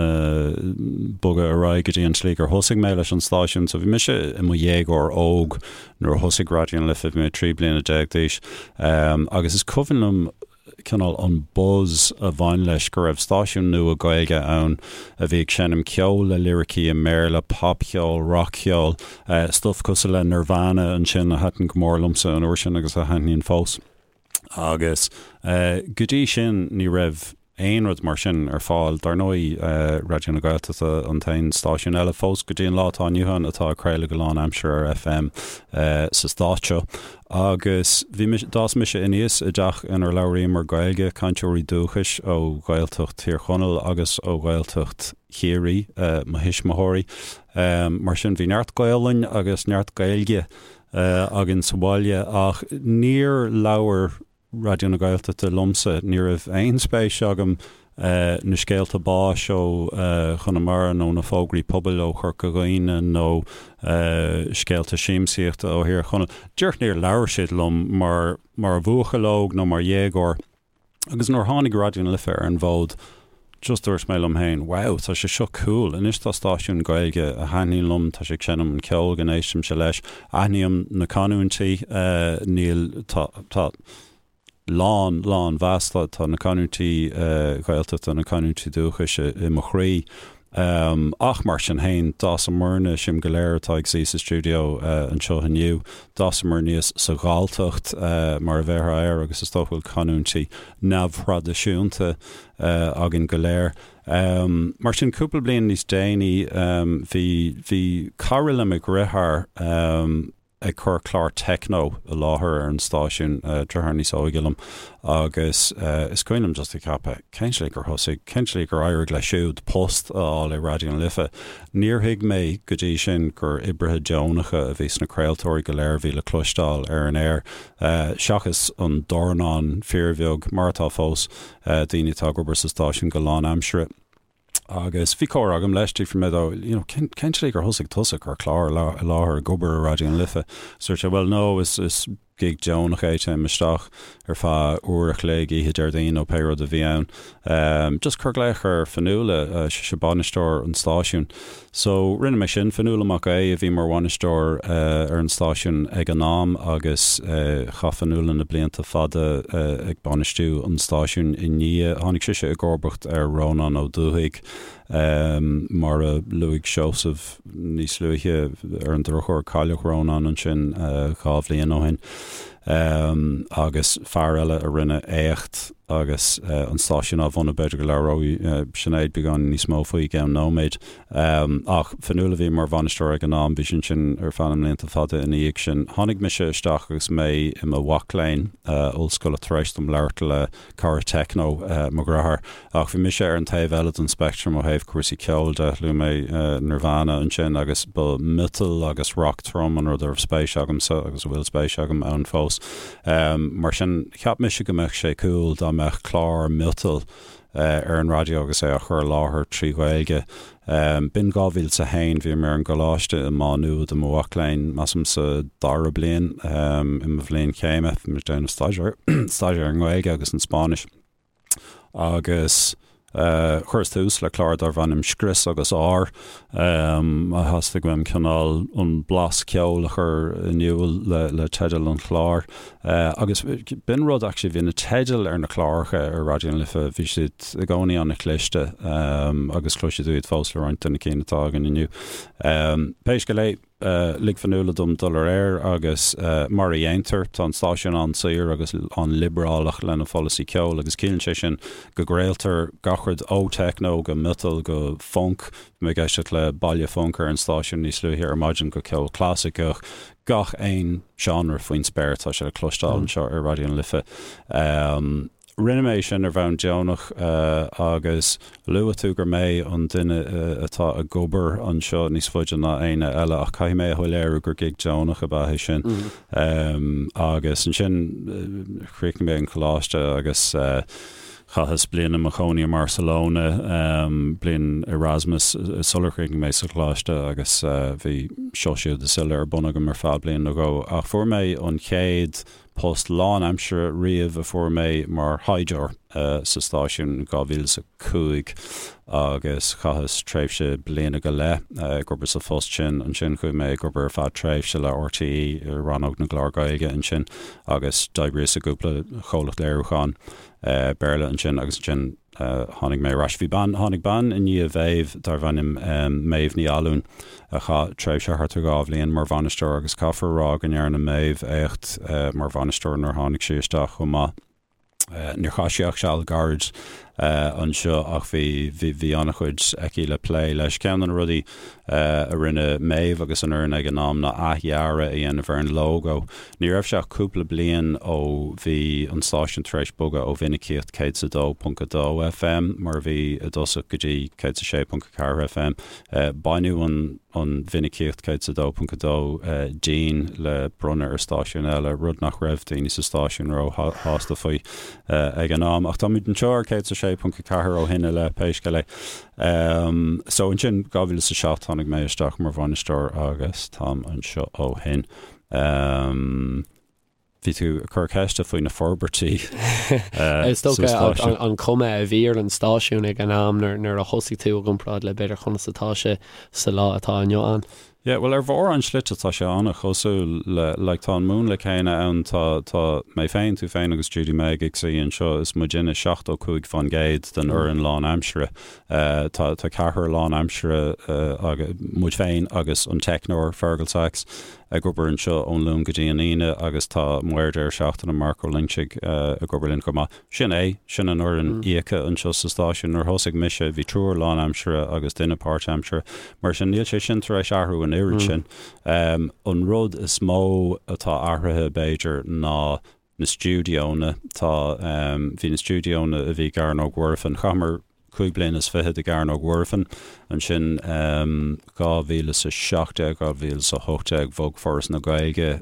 bogadh ar aghaidh go dtí an tslí gur thosaigh mé leis an stáisiún. So bhí mise i mo dhéagóir óg nuair a thosaigh Raidió na Life, bhí mé 13 bliana d'aois agus is cuimhin liom cineál an buzz a bhain leis go raibh stáisiún nua Gaeilge ann a bhí ag seinm ceol le liricí i mBéarla, popcheol, rac-cheol, stuif cosúil le Nirvana ansin a thaitin go mór liomsa an uair sin agus a thaitníonn fós. Agus go dtí sin ní raibh aon rud mar sin ar fáil. Dar ndóigh, Raidió na Gaeltachta an t-aon stáisiún eile fós go dtí an lá atá inniu ann atá ag craoladh go lánaimseartha ar FM sa stát seo. Agus bhí mise, d'fhás mise aníos i dteach inar labhraíomar Gaeilge, cainteoirí dúchais ó Ghaeltacht Thír Chonaill agus ó Ghaeltacht Chiarraí mo thuismitheoirí. Mar sin bhí neart Gaolainn agus neart Gaeilge againn sa bhaile ach níor labhair Raidió na Gaeltachta liomsa. Ní raibh aon spéis agam na scéalta báis ó Chonamara nó na fógraí pobail ó Chorca Dhuibhne nó scéalta siamsaíochta ó Thír Chonaill. Díreach níor labhair siad liom mar mar bhuachaill óg nó mar dhéagóir. Agus nuair a tháinig Raidió na Life ar an bhfód, just dúirt mé liom féin, wow, tá sé seo cool, anois tá stáisiún Gaeilge a thaitníonn liom, tá sé ag seinm an ceol go n-éistimse leis, aithním na canúintí, níl, tá, tá lán, lán mheas, tá, tá na canúintí Gaeltachta, na canúintí dúchais i mo chroí. Ach mar sin féin, d'fhásamarna, sinn go léir atá ag suí sa stiúideo anseo inniu, d'fhásamar aníos sa Ghalltacht, mar a bhéarfá air, agus is dócha go bhfuil canúintí neamhthraidisiúnta againn go léir. Mar sin, cúpla bliain níos déanaí, bhí, bhí cara le mo dheartháir. ag cur clár techno i láthair ar an stáisiún, deartháir níos óige liom, agus is cuimhin liom just ag ceapadh, cén tslí gur thosaigh, cén tslí gur éirigh leis siúd post a fháil i Raidió na Life? Níor thuig mé go dtí sin gur oibrithe deonacha a bhí sna craoltóirí go léir a bhí le cloisteáil ar an aer, seachas an dornán fíorbheag, mar atá fós, daoine atá ag obair sa stáisiún go lánaimseartha. Agus bhí comhrá agam leis, d'fhiafraigh mé dó, you know, cén, cén tslí gur thosaigh tusa ag cur clár i láthair ag obair i Raidió na Life? Dúirt sé, bhuel, no, is, is gig deonach é, téim isteach ar feadh uair a chloig oíche Déardaoin nó pé rud a bhí ann. Um, just cuir glaoch ar Fionnuala, uh, sise bainisteoir an stáisiúin. So, rinne mé sin, Fionnuala Mac Aodha a bhí mar bhainisteoir ar an stáisiún ag an am agus chaith Fionnuala na blianta fada ag bainistiú an stáisiúin i ndiaidh. Tháinig sise i gcomharbacht ar Rónán Ó Dubhthaigh, mar a luaigh Seosamh níos luaithe, ar an drochuair cailleadh Rónán ansin 2 bhliain ó shin. Agus fear eile a rinne éacht agus an stáisiún á bhunú, b'fhéidir go labhróidh Sinéad beagán níos mó faoi i gceann nóiméid. Ach Fionnuala a bhí mar bhainisteoir ag an am, bhí sí ansin ar feadh na mblianta fada ina dhiaidh sin. Tháinig mise isteach agus mé i mo mhac léinn ollscoile tar éis dom labhairt le cara techno mo dhearthár. Ach bhí mise ar an taobh eile den speictream ó thaobh cúrsaí ceoil de. Luaigh mé Nirvana ansin agus ba miotal agus rock trom an rud a raibh spéis agamsa agus a bhfuil spéis agam ann fós. Mar sin, cheap mise go mbeadh sé cool dá mbeadh clár miotail ar an raidió agus é á chur i láthair trí Ghaeilge. B'in 2001, bhí mé ar an gcoláiste i Má Nuad i mo mhac léinn, measaim sa dara bliain i mo bhliain chéime, bhí mé ag déanamh staidéar staidéar ar an nGaeilge agus an Spáinnis. Agus chuireas tús le clár darbh ainm Scrios agus Ár. Theastaigh uaim cineál an blas ceoil a chur in iúl le teideal an chláir. Agus b'in rud actually, bhí na teidil ar na cláracha ar Raidió na Life, bhí siad i gcónaí an-chliste agus cloisfidh tú iad fós le roinnt de na cinn atá againn inniu. Pé scéal é, lig Fionnuala dom dul ar aer agus mar a dhéantar, tá an stáisiún an-saor agus an-liobrálach lena pholasaí ceoil agus ciallaíonn sé sin go gcraoltar gach rud ó techno go miotal go func, bhí mé ag éisteacht le Baile Func ar an stáisiún níos luaithe ar maidin, go ceol clasaiceach, gach aon seánra faoin spéir, tá sé le cloisteáil anseo ar Raidió na Life. Rinne mé sin ar bhonn deonach agus luaigh tú gur mé an duine atá ag obair anseo níos faide ná éinne eile ach caithfidh mé a shoiléiriú gur gig deonach ab ea é sin. Agus ansin chríochnaigh mé an coláiste agus chaitheas bliain i mo chónaí i mBarcelona, bliain Erasmus sular chríochnaigh mé sa choláiste agus bhí seo siúd is uile ar bun agam ar feadh bliain nó dhó. Ach fuair mé an chéad Post lánaimseartha riamh a fuair mé mar thaighdeoir sa stáisiún in 2005 agus chaitheas tréimhse bliana go leith ag obair sa phost sin. Ansin chuaigh mé ag obair ar feadh tréimhse le RTÉ i rannóg na gclár Gaeilge ansin agus d'oibríos i gcúpla comhlacht léiriúcháin Béarla ansin agus ansin Tháinig mé ar ais. Bhí bean, tháinig bean i ndiaidh Mhéabh darbh ainm Méabh Ní Fhallúin a chaith tréimhse thart ar 2 bhliain mar bhainisteoir agus caithfear a rá go ndearna Méabh éacht mar bhainisteoir nuair a tháinig sí isteach chomh maith. Níor chaith sí ach seal gairid anseo ach bhí, bhí, bhí an-chuid aici le plé leis. Ceann de na rudaí a rinne Méabh agus an fhoireann ag an am ná athdhearadh a dhéanamh ar an lógó. Ní raibh sé ach cúpla bliain ó bhí an stáisiún tar éis bogadh ó mhinicíocht 102.2 FM, mar a bhí i dtosach, go dtí 106.4 FM. Baineadh an an mhinicíocht 102.2 dínn le bronnadh ar stáisiún eile, rud nach raibh daoine sa stáisiún ró-shásta faoi ag an am. Ach táimid anseo ar 106.4 ó shin i leith, pé scéal é. So ansin, 2007 tháinig mé isteach mar bhainisteoir agus táim anseo ó shin. Bhí tú ag cur ceiste faoi na forbairtí Is dócha an chuma a bhí ar an stáisiún ag an am nuair a thosaigh tú i gcomparáid le b'fhéidir conas atá sé sa lá atá inniu ann. Yeah, bhuel ar mhórán slite tá sé an-chosúil le, like tá an múnla céanna ann, tá, tá mé féin, tú féin agus Judy Meg ag suí anseo, is muidinne 75% den fhoireann lánaimseartha. Tá, tá ceathrar lánaimseartha, muid féin agus an teicneoir Fergal Sachs. ag obair anseo ón Luan go dtí an Aoine agus tá Maor Deireadh Seachtaine, Marc Ó Loingsigh, ag obair linn chomh maith. Sin é, sin an fhoireann íoctha anseo sa stáisiún. Nuair a thosaigh mise bhí triúr lánaimseartha agus duine páirtaimseartha. Mar sin níl sé sin tar éis athrú an oiread sin. An rud is mó atá athraithe b'fhéidir ná na stiúideonna. Tá, bhí na stiúideonna a bhí i gCearnóg Mhuirfean, chaitheamar 25 bliana i gCearnóg Mhuirfean, ansin 2017, 2018 bhog Foras na Gaeilge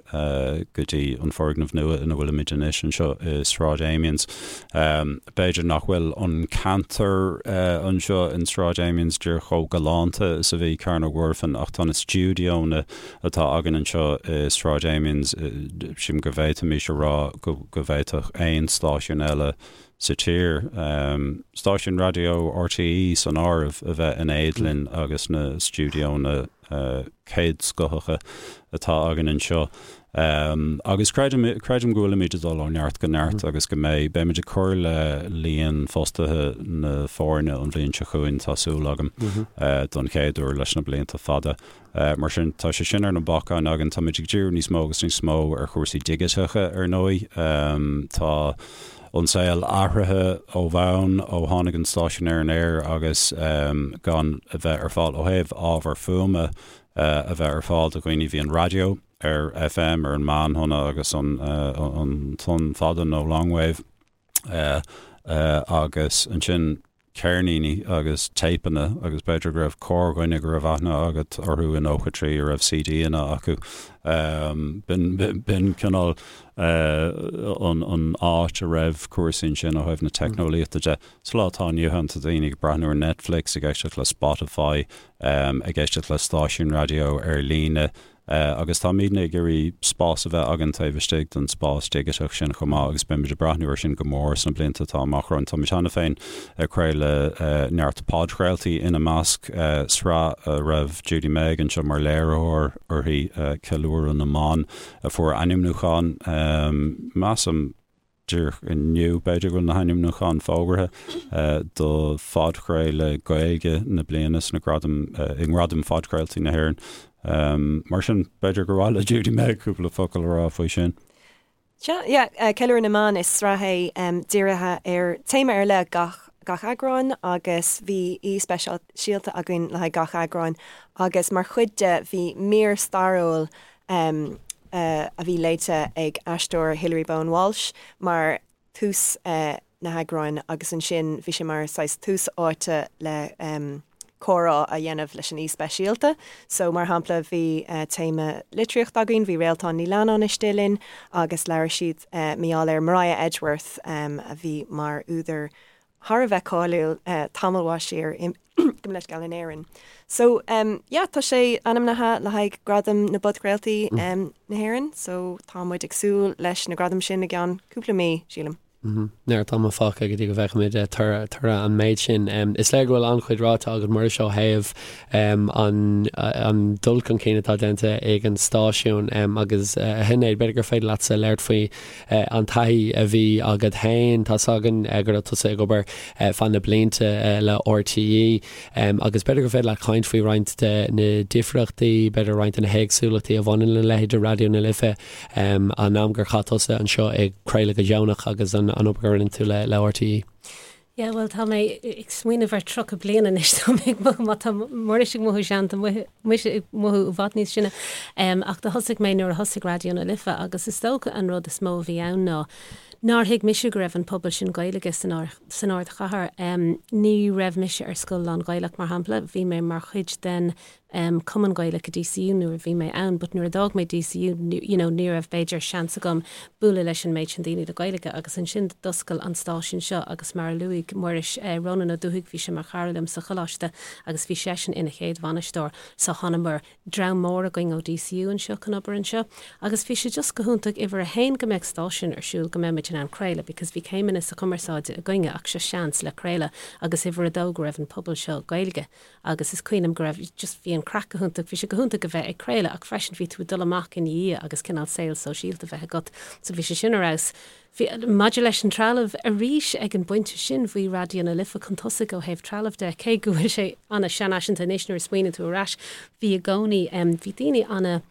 go dtí an foirgneamh nua ina bhfuilimid anois anseo i Sráid Amiens. B'fhéidir nach bhfuil an ceantar anseo in Sráid Amiens díreach chomh galánta is a bhí Cearnóg Mhuirfean ach tá na stiúideonna atá againn anseo i Sráid Amiens, sílim go bhféadfaimis a rá go bhféadfadh aon stáisiún eile sa tír, stáisiún raidió RTÉ san áireamh, a bheith in éad linn agus na stiúideonna céadscothacha atá againn anseo. Agus creidim, creidim go bhfuilimid ag dul ó neart go neart agus go mbeidh, beimid ag cur le líon fostaithe na foirne an bhliain seo chugainn, tá súil agam, don chéad uair leis na blianta fada. Mar sin, tá sé sin ar na bacáin againn. Táimid ag díriú níos mó agus níos mó ar chúrsaí digiteacha, ar ndóigh. Tá an saol athraithe ó bhonn ó tháinig an stáisiún ar an aer agus gan a bheith ar fáil ó thaobh ábhar fuaime a bheith ar fáil do dhaoine. Bhí an raidió ar FM, ar an meánthonna agus an tonn fada nó longwave. Agus ansin ceirníní agus téipeanna agus b'fhéidir go raibh corrdhuine go raibh aithne agat orthu i 93 a raibh CDanna acu. B'in cineál an áit a raibh cúrsaí ansin ó thaobh na teicneolaíochta de. Sa lá atá inniu ann tá daoine ag breathnú ar Netflix, ag éisteacht le Spotify, ag éisteacht le stáisiúin raidió ar líne. Agus táimidne ag iarraidh spás a bheith againn taobh istigh den spás digiteach sin chomh maith agus beimid ag breathnú air sin go mór sna blianta atá amach romhainn. Táimid cheana féin ag craoladh neart podchraoltaí, ina measc sraith a raibh Judy Meg anseo mar léiritheoir uirthi, Ceiliúradh na mBan, a fuair ainmniúchán, measaim, Díreach inniu, b'fhéidir go bhfuil na hainmniúcháin fógartha do phodchraoladh Gaeilge na bliana sna gradaim, i nGradaim Phodchraoltaí na hÉireann. Mar sin, b'fhéidir gur mhaith le Judy Meg cúpla focal a rá faoi sin. Sea, yeah, Ceiliúradh na mBan, is sraith é dírithe ar téama ar leith gach gach eagrán agus bhí aoi speisialta againn le haghaidh gach eagrán agus mar chuid de bhí mír stairiúil a bhí léite ag aisteoir Hilary Bowen Walsh mar tús na heagráin agus ansin bhí sé mar saghas tús áite le comhrá a dhéanamh leis an aoi speisialta. So mar shampla bhí téama litríochta againn, bhí Réaltán Ní Leannáin istigh linn agus labhair siad mar gheall ar Maria Edgeworth a bhí mar údar thar a bheith cáiliúil tamall mhaith siar gabh mo leithscéal in Éirinn. So yeah tá sé ainmnithe le haghaidh Gradam na bPodchraoltaí na hÉireann so tá muid ag súil leis na gradaim sin i gceann cúpla mí, sílim. Neart ama fágtha go dtí go bhfeicfimid toradh an méid sin. Is léir go bhfuil an-chuid ráite agat Muiris ó thaobh an dul chun cinn atá déanta ag an stáisiún agus a Shinéad, b'fhéidir gur féidir leatsa labhairt faoi an taithí a bhí agat féin. Tá's againn go raibh tusa ag obair feadh na blianta le RTÉ agus b'fhéidir gur féidir leat caint faoi roinnt de na difríochtaí, b'fhéidir roinnt de na héagsúlachtaí a bhaineann le leithéid de Raidió na Life, an am gur chaith tusa anseo ag craoladh go deonach agus an obair a rinne tú le RTÉ. Yeah, bhuel, tá mé ag smaoineamh ar 30 bliain anois, tá mé ag mothú, má tá Muiris ag mothú sean, tá mise ag mothú i bhfad níos sine. Ach do thosaigh mé nuair a thosaigh Raidió na Life agus is dócha an rud is mó a bhí ann ná nár thuig mise go raibh an pobal sin Gaeilge san san ardchathair. Ní raibh mise ar scoil lán-Ghaelach, mar shampla, bhí mé mar chuid den Cumann Gaelach i DCU nuair a bhí mé ann but nuair a d'fhág mé DCU you know ní raibh b'fhéidir seans agam bualadh leis an méid sin daoine le Gaeilge agus ansin d'oscail an stáisiún seo agus mar a luaigh Muiris, Rónán Ó Dubhthaigh bhí sé mar chara liom sa choláiste agus bhí seisean ina chéad bhainisteoir so thánamar dream mór againn ó DCU anseo chun obair anseo agus bhí sé just go hiontach uimhir a haon go mbeadh stáisiún ar siúl go mbeadh muid in ann craoladh because bhí céimeanna sa chumarsáide againne ach seo seans le craoladh agus uimhir a dó go raibh an pobal seo Gaeilge agus is cuimhin liom go raibh, just bhí an craic go hiontach, bhí sé go hiontach a bheith ag craoladh ach freisin bhí tú ag dul amach ina dhiaidh agus cineál saol sóisialta a bheith agat so bhí sé sin ar fheabhas. Bhí, maidir leis an trealamh, arís ag an bpointe sin bhí Raidió na Life chun tosaigh ó thaobh trealamh de, cé go bhfuil sé ana-sheanfhaiseanta anois nuair a smaoiníonn tú ar ais, bhí i gcónaí, bhí daoine ana.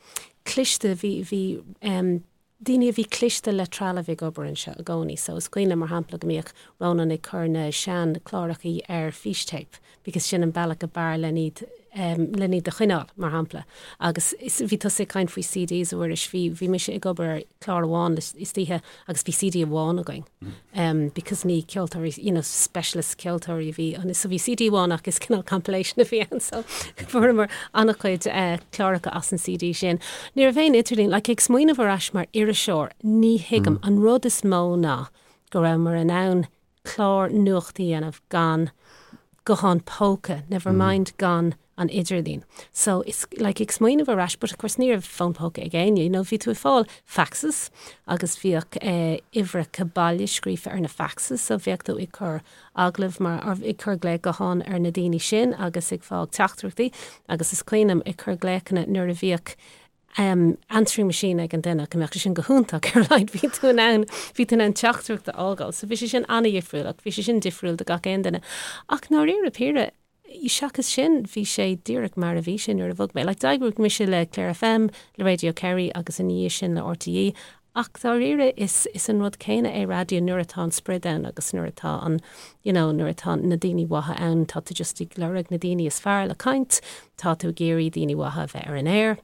cliste, bhí, bhí em daoine a bhí cliste le trealamh ag obair anseo i gcónaí. So is cuimhin liom mar shampla go mbíodh Rónán ag cur na sean clárachaí ar fístéip because sin an bealach ab fhearr len iad em len iad a choinneáil mar shampla. Agus is bhí tusa ag caint faoi CDs a Mhuiris, bhí bhí mise ag obair ar chlár amháin istoíche agus bhí CD amháin againn em because ní ceoltóirí you know specialist ceoltóirí a bhí ann so bhí CD amháin ach is cineál compilation a bhí ann so fuaireamar an-chuid eh cláracha as an CD sin. Ní raibh aon idirlíon like ag smaoineamh ar ais mar iriseoir ní thuigim an rud is mó ná go rabhamar in ann clár nuachta a dhéanamh gan guthán póca, never mind gan an idirlíon. So is like ag smaoineamh ar ais, but of course ní raibh fón póca ag éinne, you know, bhí tú ag fáil faxes agus bhíodh eh, uimhreacha baile scríofa ar na faxes, so bheadh tú ag cur agallamh mar, or ag cur glao gutháin ar na daoine sin agus ag fáil teachtaireachtaí agus is cuimhin liom ag cur glaochanna nuair a bhíodh answering machine ag an duine, go mbeadh sé sin go hiontach ar a laghad bhí tú in ann, bhí tú in ann teachtaireacht a fhágáil. So bhí sé sin an-dhifriúil ach bhí sé sin difriúil do gach aon duine. Ach ndáiríre píre, seachas sin, bhí sé díreach mar a bhí sé nuair a bhog mé. Like d'oibrigh mise le Clare FM, le Radio Kerry agus ina dhiaidh sin le RTÉ Ach dáiríre is is an rud céanna é raidió nuair atá an sprid ann agus nuair atá an you know nuair atá na daoine mhaithe ann tá tú just ag lorg na daoine is fearr le caint, tá tú ag iarraidh daoine mhaithe a bheith ar an aer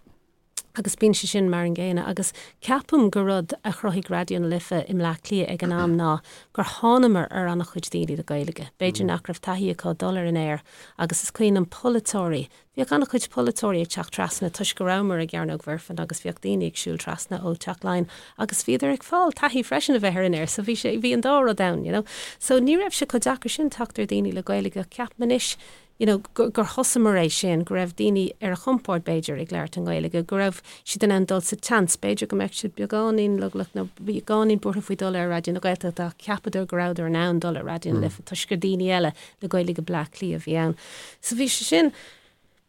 agus bíonn sé sin mar an gcéanna agus ceapaim gur rud a chruthaigh Raidió na Life i mBleá Cliath ag an am ná gur thánamar ar an-chuid daoine le Gaeilge. B'fhéidir nach raibh taithí acu dul ar an aer agus is cuimhin liom polaiteoirí Bhíodh an-chuid polaiteoirí ag teacht trasna toisc go rabhamar i gCearnóg Mhuirfean agus bhíodh daoine ag siúl trasna ó Teach Laighean agus bhíodar ag fáil taithí freisin a bheith ar an aer so bhí sé, bhí an dá rud ann, you know. So ní raibh sé chomh deacair sin teacht ar daoine le Gaeilge ach ceapaim anois, you know, gur, gur thosamar é sin, go raibh daoine ar a gcompord b'fhéidir ag labhairt i nGaeilge, go raibh siad in ann dul sa tseans, b'fhéidir go mbeadh siad beagáinín leochaileach nó beagáinín buartha faoi dul ar Raidió na Gaeltachta ach cheapadar go rabhadar in ann dul ar Raidió na Life toisc gur daoine eile le Gaeilge Bleá Cliath a bhí ann. So bhí sé sin,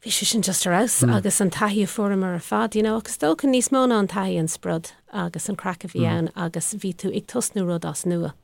bhí sé sin just ar fheabhas agus an taithí a fuaireamar ar fad, you know, agus is dócha níos mó ná an taithí an sprioc agus an craic a bhí ann agus bhí tú ag tosnú rud as nua.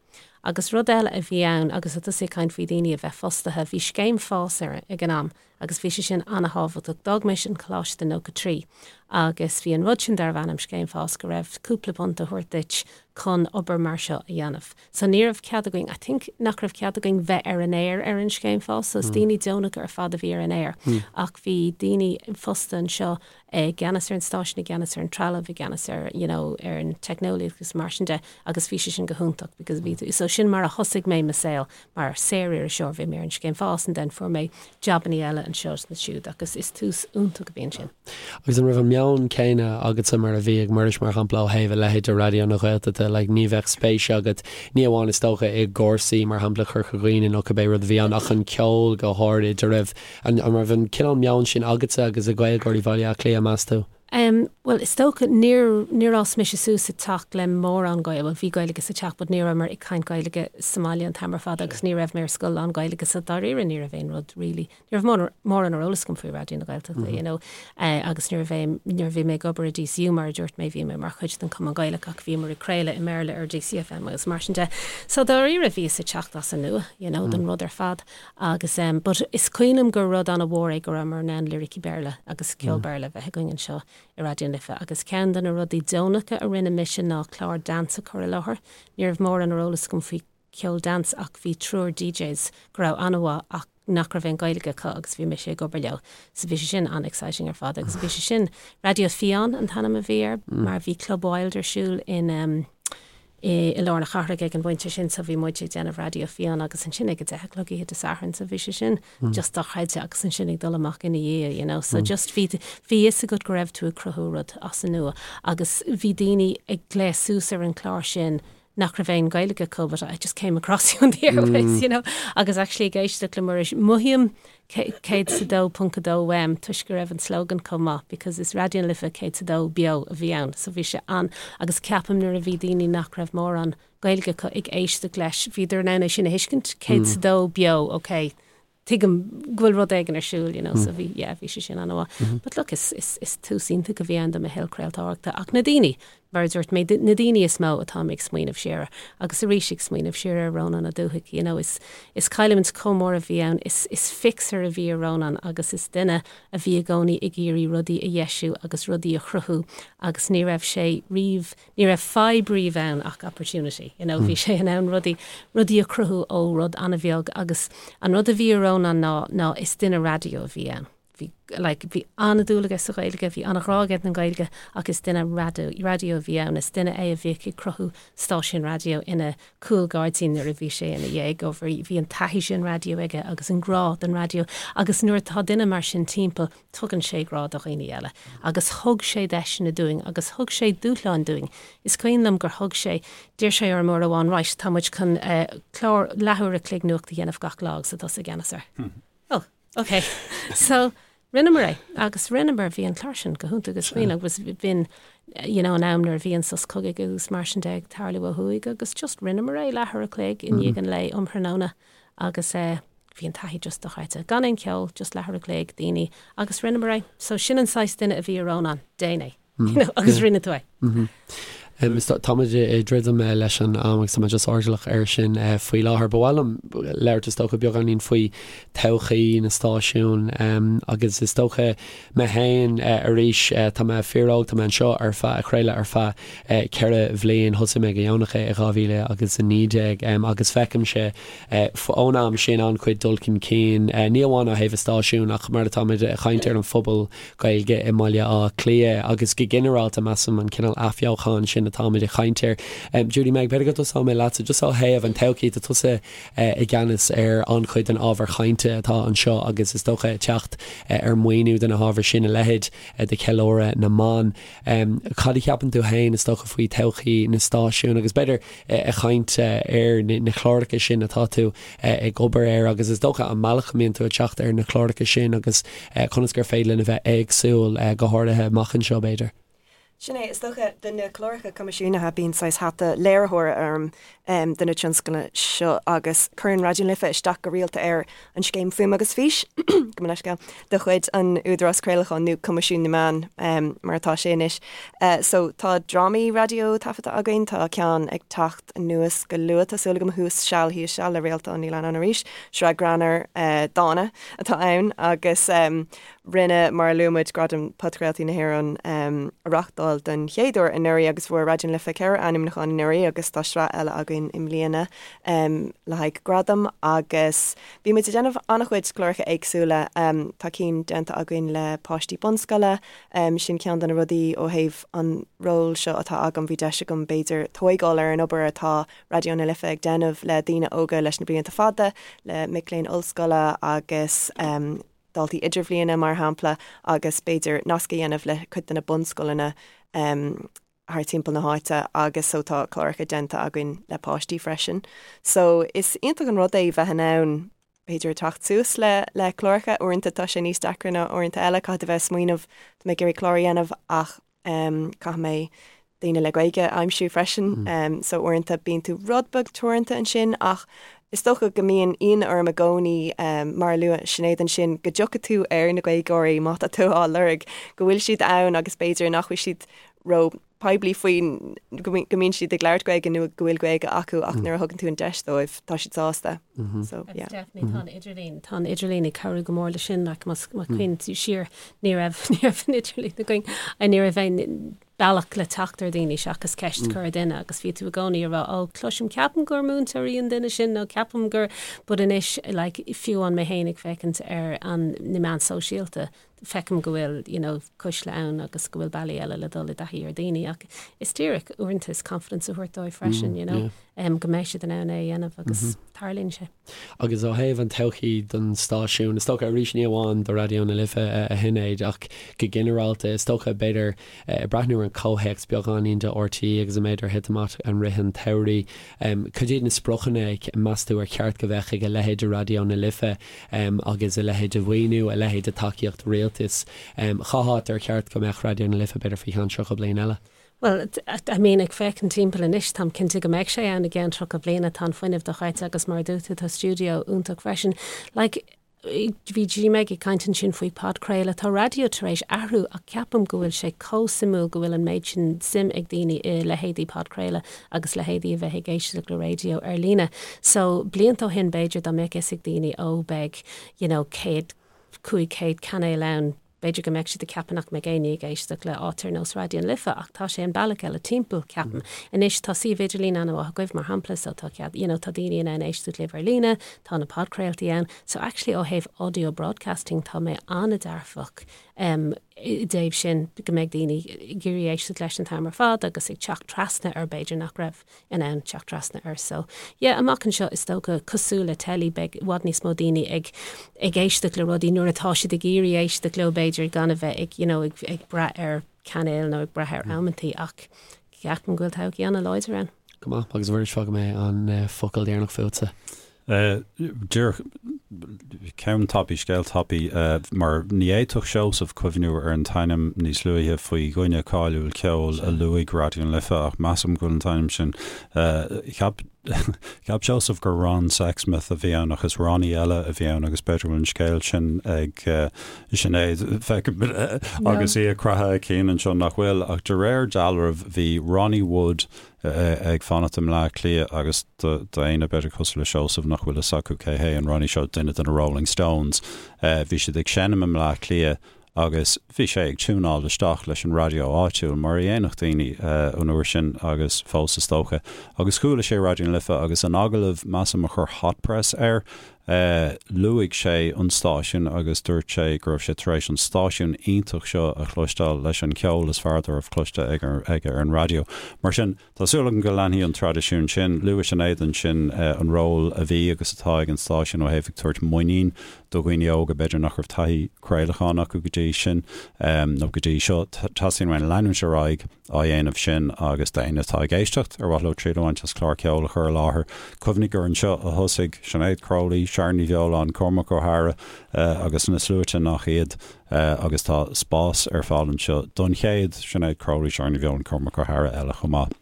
Agus rud eile a bhí ann agus tá tusa ag caint faoi daoine a bheith fostaithe, bhí scéim fás ar ag an am agus bhí sé sin ana-thábhachtach. D'fhág mise an coláiste i 93 agus bhí an rud sin darbh ainm scéim fás go raibh cúpla punt á thabhairt duit chun obair mar seo a dhéanamh. So ní raibh cead againn, I think nach raibh cead againn bheith ar an aer ar an scéim fás, so is daoine deonacha ar fad a bhí ar an aer ach bhí daoine fostaithe anseo i gceannas ar an stáisiún, i gceannas ar an trealamh, i gceannas ar, you know, ar an teicneolaíocht agus mar sin de agus bhí sé sin go hiontach because bhí tú, so sin mar a thosaigh mé mo saol mar saor-iriseoir, bhí mé ar an scéim fás and then fuair mé jabannaí eile anseo is ansiúd agus is tús iontach a bhí ansin. Agus an raibh an meon céanna agatsa mar a bhí ag Muiris, mar shampla, ó thaobh a leithéid de Raidió na Gaeltachta, like ní bheadh spéis agat, ní amháin is dócha i gcúrsaí, mar shampla, Chorca Dhuibhne nó cibé rud a bhí ann, ach an ceol go háirid, an raibh, an raibh an cineál meoin sin agatsa agus ag Gaeilgeoirí Bhaile Átha Cliath, meas tú? Em, bhuel, is dócha, níor, níor fhás mise suas sa teach le mórán Gaeilge, bhuel, bhí Gaeilge sa teach but ní rabhamar ag caint Gaeilge sa mbaile an t-am ar fad agus ní raibh mé ar scoil lán-Ghaeilge so dáiríre ní raibh aon rud really, ní raibh mórán ar eolas agam faoi Raidió na Gaeltachta, you know, agus nuair a bhí, nuair a bhí mé ag obair i DCU, mar a dúirt mé, bhí mé mar chuid den Chumann Gaelach ach bhíomar ag craoladh i mBéarla ar DCFM agus mar sin de. So dáiríre bhíos ag teacht as an nua, you know, don rud ar fad agus em, but is cuimhin liom gur rud an-mhór é go rabhamar in ann liricí Béarla agus ceol Béarla a bheith againn anseo i Raidió na Life agus ceann de na rudaí deonacha a rinne mise ná clár dance a chur i láthair. Ní raibh mórán ar eolas agam faoi ceol dance ach bhí triúr DJs go raibh an-mhaith ach nach raibh aon Ghaeilge acu agus bhí mise ag obair leo. So bhí sé sin an-exciting ar fad agus bhí sé sin, Raidió Fiáin an t-ainm a bhí air mar bhí Club Wild ar siúl in um, i, i lár na cathrach ag an bpointe sin so bhí muid ag déanamh Raidió Fiáin agus ansin ag a 10 a chlog oíche Dé Sathairn so bhí sé sin just dochreidte agus ansin ag dul amach ina dhiaidh you know so just bhí bhí fhios agat go raibh tú ag cruthú rud as an nua agus bhí daoine ag glaoch suas ar an chlár sin nach raibh aon Ghaeilge acu but I just came across you on the airwaves, you know, agus actually ag éisteacht le Muiris, mothaím 102.2 uaim toisc go raibh an slogan chomh maith because is Raidió na Life 102 beo a bhí ann so bhí sé an agus ceapaim nuair a bhí daoine nach raibh mórán Gaeilge acu ag éisteacht leis bhíodar in ann é sin a thuiscint 102 beo, ok. tuigim go bhfuil rud éigin ar siúl, you know, so bhí, yeah, bhí sé sin an-mhaith. But look, is, is, is tús iontach a bhí ann do mo shaol craoltóireachta ach na daoine, mar a dúirt mé, na daoine is mó atáim ag smaoineamh siar air. Agus arís ag smaoineamh siar ar Rónán Ó Dubhthaigh, you know, is, is cailliúint chomh mór a bhí ann, is, is fixer a bhí i Rónán agus is duine a bhí i gcónaí ag iarraidh rudaí a dheisiú agus rudaí a chruthú agus ní raibh sé riamh, ní raibh fadhb riamh ann ach opportunity, you know, bhí sé in ann rudaí, rudaí a chruthú ó rud an-bheag agus an rud a bhí i Rónán ná, ná is duine raidió a bhí ann. Bhí, like, bhí an-dúil aige sa Ghaeilge, bhí an-ghrá aige don Ghaeilge ach is duine raidió, raidió a bhí ann, is duine é a bhíodh ag cruthú stáisiún raidió ina chúlghairdín nuair a bhí sé ina dhéagóir. Bhí an taithí sin raidió aige agus an grá don raidió agus nuair atá duine mar sin timpeall, tugann sé grá do dhaoine eile. Agus thug sé deiseanna dúinn agus thug sé dúshláin dúinn. Is cuimhin liom gur thug sé, d'iarr sé orm uair amháin, right, tá muid chun clár leathuair a chloig nuacht a dhéanamh gach lá agus tá tusa i gceannas air. Oh. Ok, so rinneamar é agus rinneamar, bhí an clár sin go hiontach is cuimhin agus b'in you know an am nuair a bhí an sos cogaidh agus mar sin de ag tarlú ó thuaidh agus just rinneamar é leathuair a chloig i ndiaidh an lae um thráthnóna agus eh bhí an taithí just dochreidte. Gan aon cheol, just leathuair a chloig, daoine agus rinneamar é. So sin an saghas duine a bhí i Rónán, déan é. You know, agus rinne tú é. Táimid ag druidim leis an am agus tá mé just airdeallach air sin faoi láthair. Ba mhaith liom labhairt is dócha beagáinín faoi todhchaí na stáisiún agus is dócha mé féin arís tá mé fíor-óg, tá mé anseo ar feadh, ag craoladh ar feadh 4 bhliain, thosaigh mé go dheonach i 2019 agus feicimse ón am sin an-chuid dul chun cinn, ní amháin ó thaobh an stáisiúin ach mar atáimid ag caint ar an phobal Gaeilge i mBaile Átha Cliath agus go ginearálta measaim an cineál athbheochan sin atáimid ag caint air. Judy Meg, b'fhéidir go dtosóidh mé leatsa just ó thaobh an todhchaí, tá tusa i gceannas ar an-chuid den ábhar chainte atá anseo agus is dócha ag teacht ar maoiniú do na hábhair sin, a leithéid de cheiliúradh na mban. Cad a cheapann tú féin is dócha faoi todhchaí na stáisiún agus b'fhéidir ag caint ar na cláracha sin atá tú ag obair air agus is dócha an mbealach a mbíonn tú ag teacht ar na cláracha sin agus conas gur féidir linn a bheith éagsúil, go háirithe amach anseo b'fhéidir. Sin é, is dócha, do na cláracha coimisiúnaithe bíonn saghas hata léiritheora orm do na tionscnaimh seo agus cuireann Raidió na Life isteach go rialta ar an scéim Fuaim agus Fís, gabh mo leithscéal, de chuid an Údarás Craolacháin nó Coimisiún na Meán mar atá sé anois. So tá drámaí raidió taifeadta againn, tá ceann ag teacht anuas go luath, tá súil agam, Thuas Seal Thíos Seal le Réaltán Ní Leannáin arís, sraith greannmhar dána atá ann agus rinne, mar a luaigh muid, Gradaim Podchraoltaí na hÉireann a reáchtáil don chéad uair anuraidh agus fuair Raidió na Life 4 ainmniúchán anuraidh agus tá sraith eile againn i mbliana le haghaidh gradam agus bhí muid ag déanamh an-chuid cláracha éagsúla. Tá cinn déanta againn le páistí bunscoile, sin ceann de na rudaí ó thaobh an ról seo atá agam, bhí deis agam b'fhéidir tóigeáil ar an obair atá Raidió na Life ag déanamh le daoine óga leis na blianta fada, le mic léinn ollscoile agus daltaí idirbhliana mar shampla agus b'fhéidir nasc a dhéanamh le cuid de na bunscoileanna thar timpeall na háite agus so tá cláracha déanta againn le páistí freisin. So is iontach an rud é bheith in ann b'fhéidir teacht suas le le cláracha, uaireanta tá sé níos deacra ná uaireanta eile, caithfidh tú bheith ag smaoineamh tá mé ag iarraidh clár a dhéanamh ach caithfidh mé daoine le Gaeilge a aimsiú freisin so uaireanta bíonn tú rud beag teoranta ansin ach is dócha go mbíonn ionadh orm i gcónaí mar a luaigh Sinéad ansin go dtiocfaidh tú ar na Gaeilgeoirí má tá tú á lorg go bhfuil siad ann agus b'fhéidir nach bhfuil siad ró poiblí faoin go mbíonn siad ag labhairt Gaeilge nó go bhfuil Gaeilge acu ach nuair a thugann tú an deis dóibh tá siad sásta. So yeah. Definitely tá an idirlíon tá an idirlíon ag cabhrú go mór le sin like más má cuimhníonn tú siar ní raibh ní raibh an idirlíon againn ní raibh aon bealach le teacht ar daoine seachas ceist a chur ar duine agus bhí tú i gcónaí ag rá ó cloisim ceapaim gur múinteoir í an duine sin nó ceapaim gur but anois like fiú amháin mé féin ag féachaint ar an na meáin sóisialta feicim go bhfuil you know cuisle ann agus go bhfuil bealaí eile le dul i dtaithí ar daoine ach is díreach uaireanta is confidence a thabhairt dóibh freisin you know um, go mbeidh siad in ann é a dhéanamh agus mm -hmm. tarlaíonn sé. Agus ó thaobh an todhchaí don stáisiún, is dócha arís ní amháin do Raidió na Life a Shinéad ach go ginearálta is dócha b'fhéidir ag breathnú ar an comhthéacs beagáinín de RTÉ agus an méid ar thit amach i rith an tsamhraidh. Cad iad na spriocanna meas tú ar cheart go bheadh ag a leithéid de Raidió na Life agus a leithéid de mhaoiniú, a leithéid de tacaíocht rialtais? Cá háit ar cheart go mbeadh Raidió na Life b'fhéidir faoi cheann 30 bliain eile? Bhuel, I mean, ag féachaint timpeall anois, táim cinnte go mbeidh sé ann i gceann 30 bliana, tá an fuinneamh dochreidte agus mar a dúirt tú, tá stiúideo iontach freisin. Like, Bhí G-Meg ag caint ansin faoi podchraoladh. Tá raidió tar éis athrú ach ceapaim go bhfuil sé chomh suimiúil go bhfuil an méid sin suim ag daoine i leithéidí podchraoladh agus leithéidí a bheith ag éisteacht le raidió ar líne. So blianta ó shin b'fhéidir dá mbeadh fhios ag daoine ó beidh you know 100, 500 cainéal ann, B'fhéidir go mbeadh siad ag ceapadh nach mbeidh éinne ag éisteacht le áit ar nós Raidió na Life ach tá sé an bealach eile timpeall, ceapaim. Anois tá suíomh idirlín an-mhaith agaibh, mar shampla, so tá cead, you know, tá daoine in ann éisteacht libh ar líne, tá na podchraoltaí ann. So actually ó thaobh audio broadcasting tá mé an-dearfach em i dtaobh sin, go mbeidh daoine ag iarraidh éisteacht leis an t-am ar fad agus ag teacht trasna ar b'fhéidir nach raibh in ann teacht trasna air. So, yeah, amach anseo is dócha, cosúil le teilí, beidh i bhfad níos mó daoine ag ag éisteacht le rudaí nuair atá siad ag iarraidh éisteacht leo b'fhéidir gan a bheith ag, you know, ag ag brath ar cainéil nó ag brath ar amantaí ach ceapaim go bhfuil todhchaí an-láidir ann. Go maith, agus a Mhuiris, fágfaidh mé an focal deireanach fútsa. Díreach ceann tapaidh, scéal tapaidh, mar ní fhéadfadh Seosamh cuimhniú ar an t-ainm níos luaithe faoi dhuine cáiliúil ceoil a luaigh Raidió na Life ach measaim go bhfuil an t-ainm sin, cheap, cheap Seosamh gur Ron Sexsmith a bhí ann ach is Ronnie eile a bhí ann agus b'fhéidir go bhfuil an scéal sin ag Sinéad, feicim agus í ag croitheadh a cinn anseo nach bhfuil ach de réir dealraimh bhí Ronnie Wood ag fanacht i mBleá Cliath agus d'éinne b'fhéidir cosúil le Seosamh nach bhfuil fhios acu cé hé an Ronnie seo, duine de na Rolling Stones, bhí siad ag seinm i mBleá Cliath agus bhí sé ag tiúnáil isteach leis an raidió áitiúil, mar a dhéanfadh daoine an uair sin agus fós is dócha. Agus chuala sé Raidió na Life agus in agallamh, measaim, a chuir Hot Press air, Luaigh sé an stáisiún agus dúirt sé go raibh sé tar éis an stáisiún iontach seo a chloisteáil leis an cheol is fearr dá raibh cloiste aige ar an raidió. Mar sin, tá súil agam go leanfaidh an traidisiún sin. Luaigh Sinéad ansin an ról a bhí agus atá ag an stáisiún ó thaobh ag tabhairt muinín do dhaoine óga b'fhéidir nach raibh taithí craolacháin acu go dtí sin nó go dtí seo. Teastaíonn uainn leanúint ar aghaidh. á dhéanamh sin agus d'éinne atá ag éisteacht ar mhaith leo triail a bhaint as clár ceoil a chur i láthair, cuimhnigh gur anseo a thosaigh Sinéad Crowley, Sharon Ní Bheoláin, Cormac Ó hEadhra agus na sluaite nach iad agus tá spás ar fáil anseo don chéad Sinéad Crowley, Sharon Ní Bheoláin, Cormac Ó hEadhra eile chomh maith.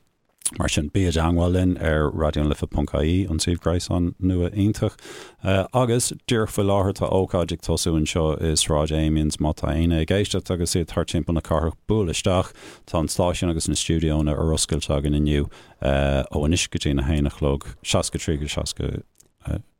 Mar sin, bí i dteangmháil linn ar raidionalife.ie, an suíomh gréasáin nua iontach. Agus, díreach faoi láthair, tá ócáid ag tosú anseo i Sráid Amiens. Má tá éinne ag éisteacht agus iad thart timpeall na cathrach, buail isteach. Tá an stáisiún agus na stiúideonna ar oscailt againn inniu ó anois go dtí a haon a chlog, 63 go 66.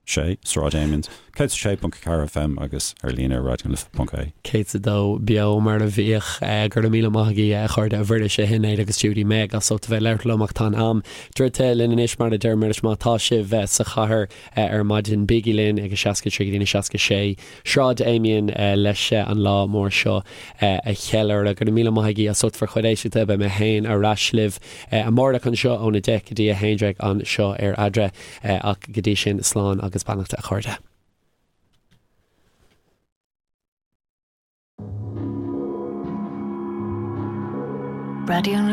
Sráid Amiens, 106.4 FM agus ar líne ar raidionalife.ie. 102 beo mar a bhíodh. Go raibh míle maith agaibh a chairde, a Mhuiris, a Shinéad agus Judy Meg as ucht a bheith ag labhairt liom ach tá an am druidte linn anois mar a deir Muiris má tá sibh sa chathair ar maidin bígí linn ag a 63 go dtí a 66 Sráid Amiens leis an lá mór seo a cheiliúradh. Go raibh míle maith agaibh as ucht bhur chuid éisteachta. Beidh mé féin ar ais libh amárach anseo ón 10 go dtí 11 anseo ar Eadra. Ach go dtí sin, slán agus beannacht a chairde. Raidió na.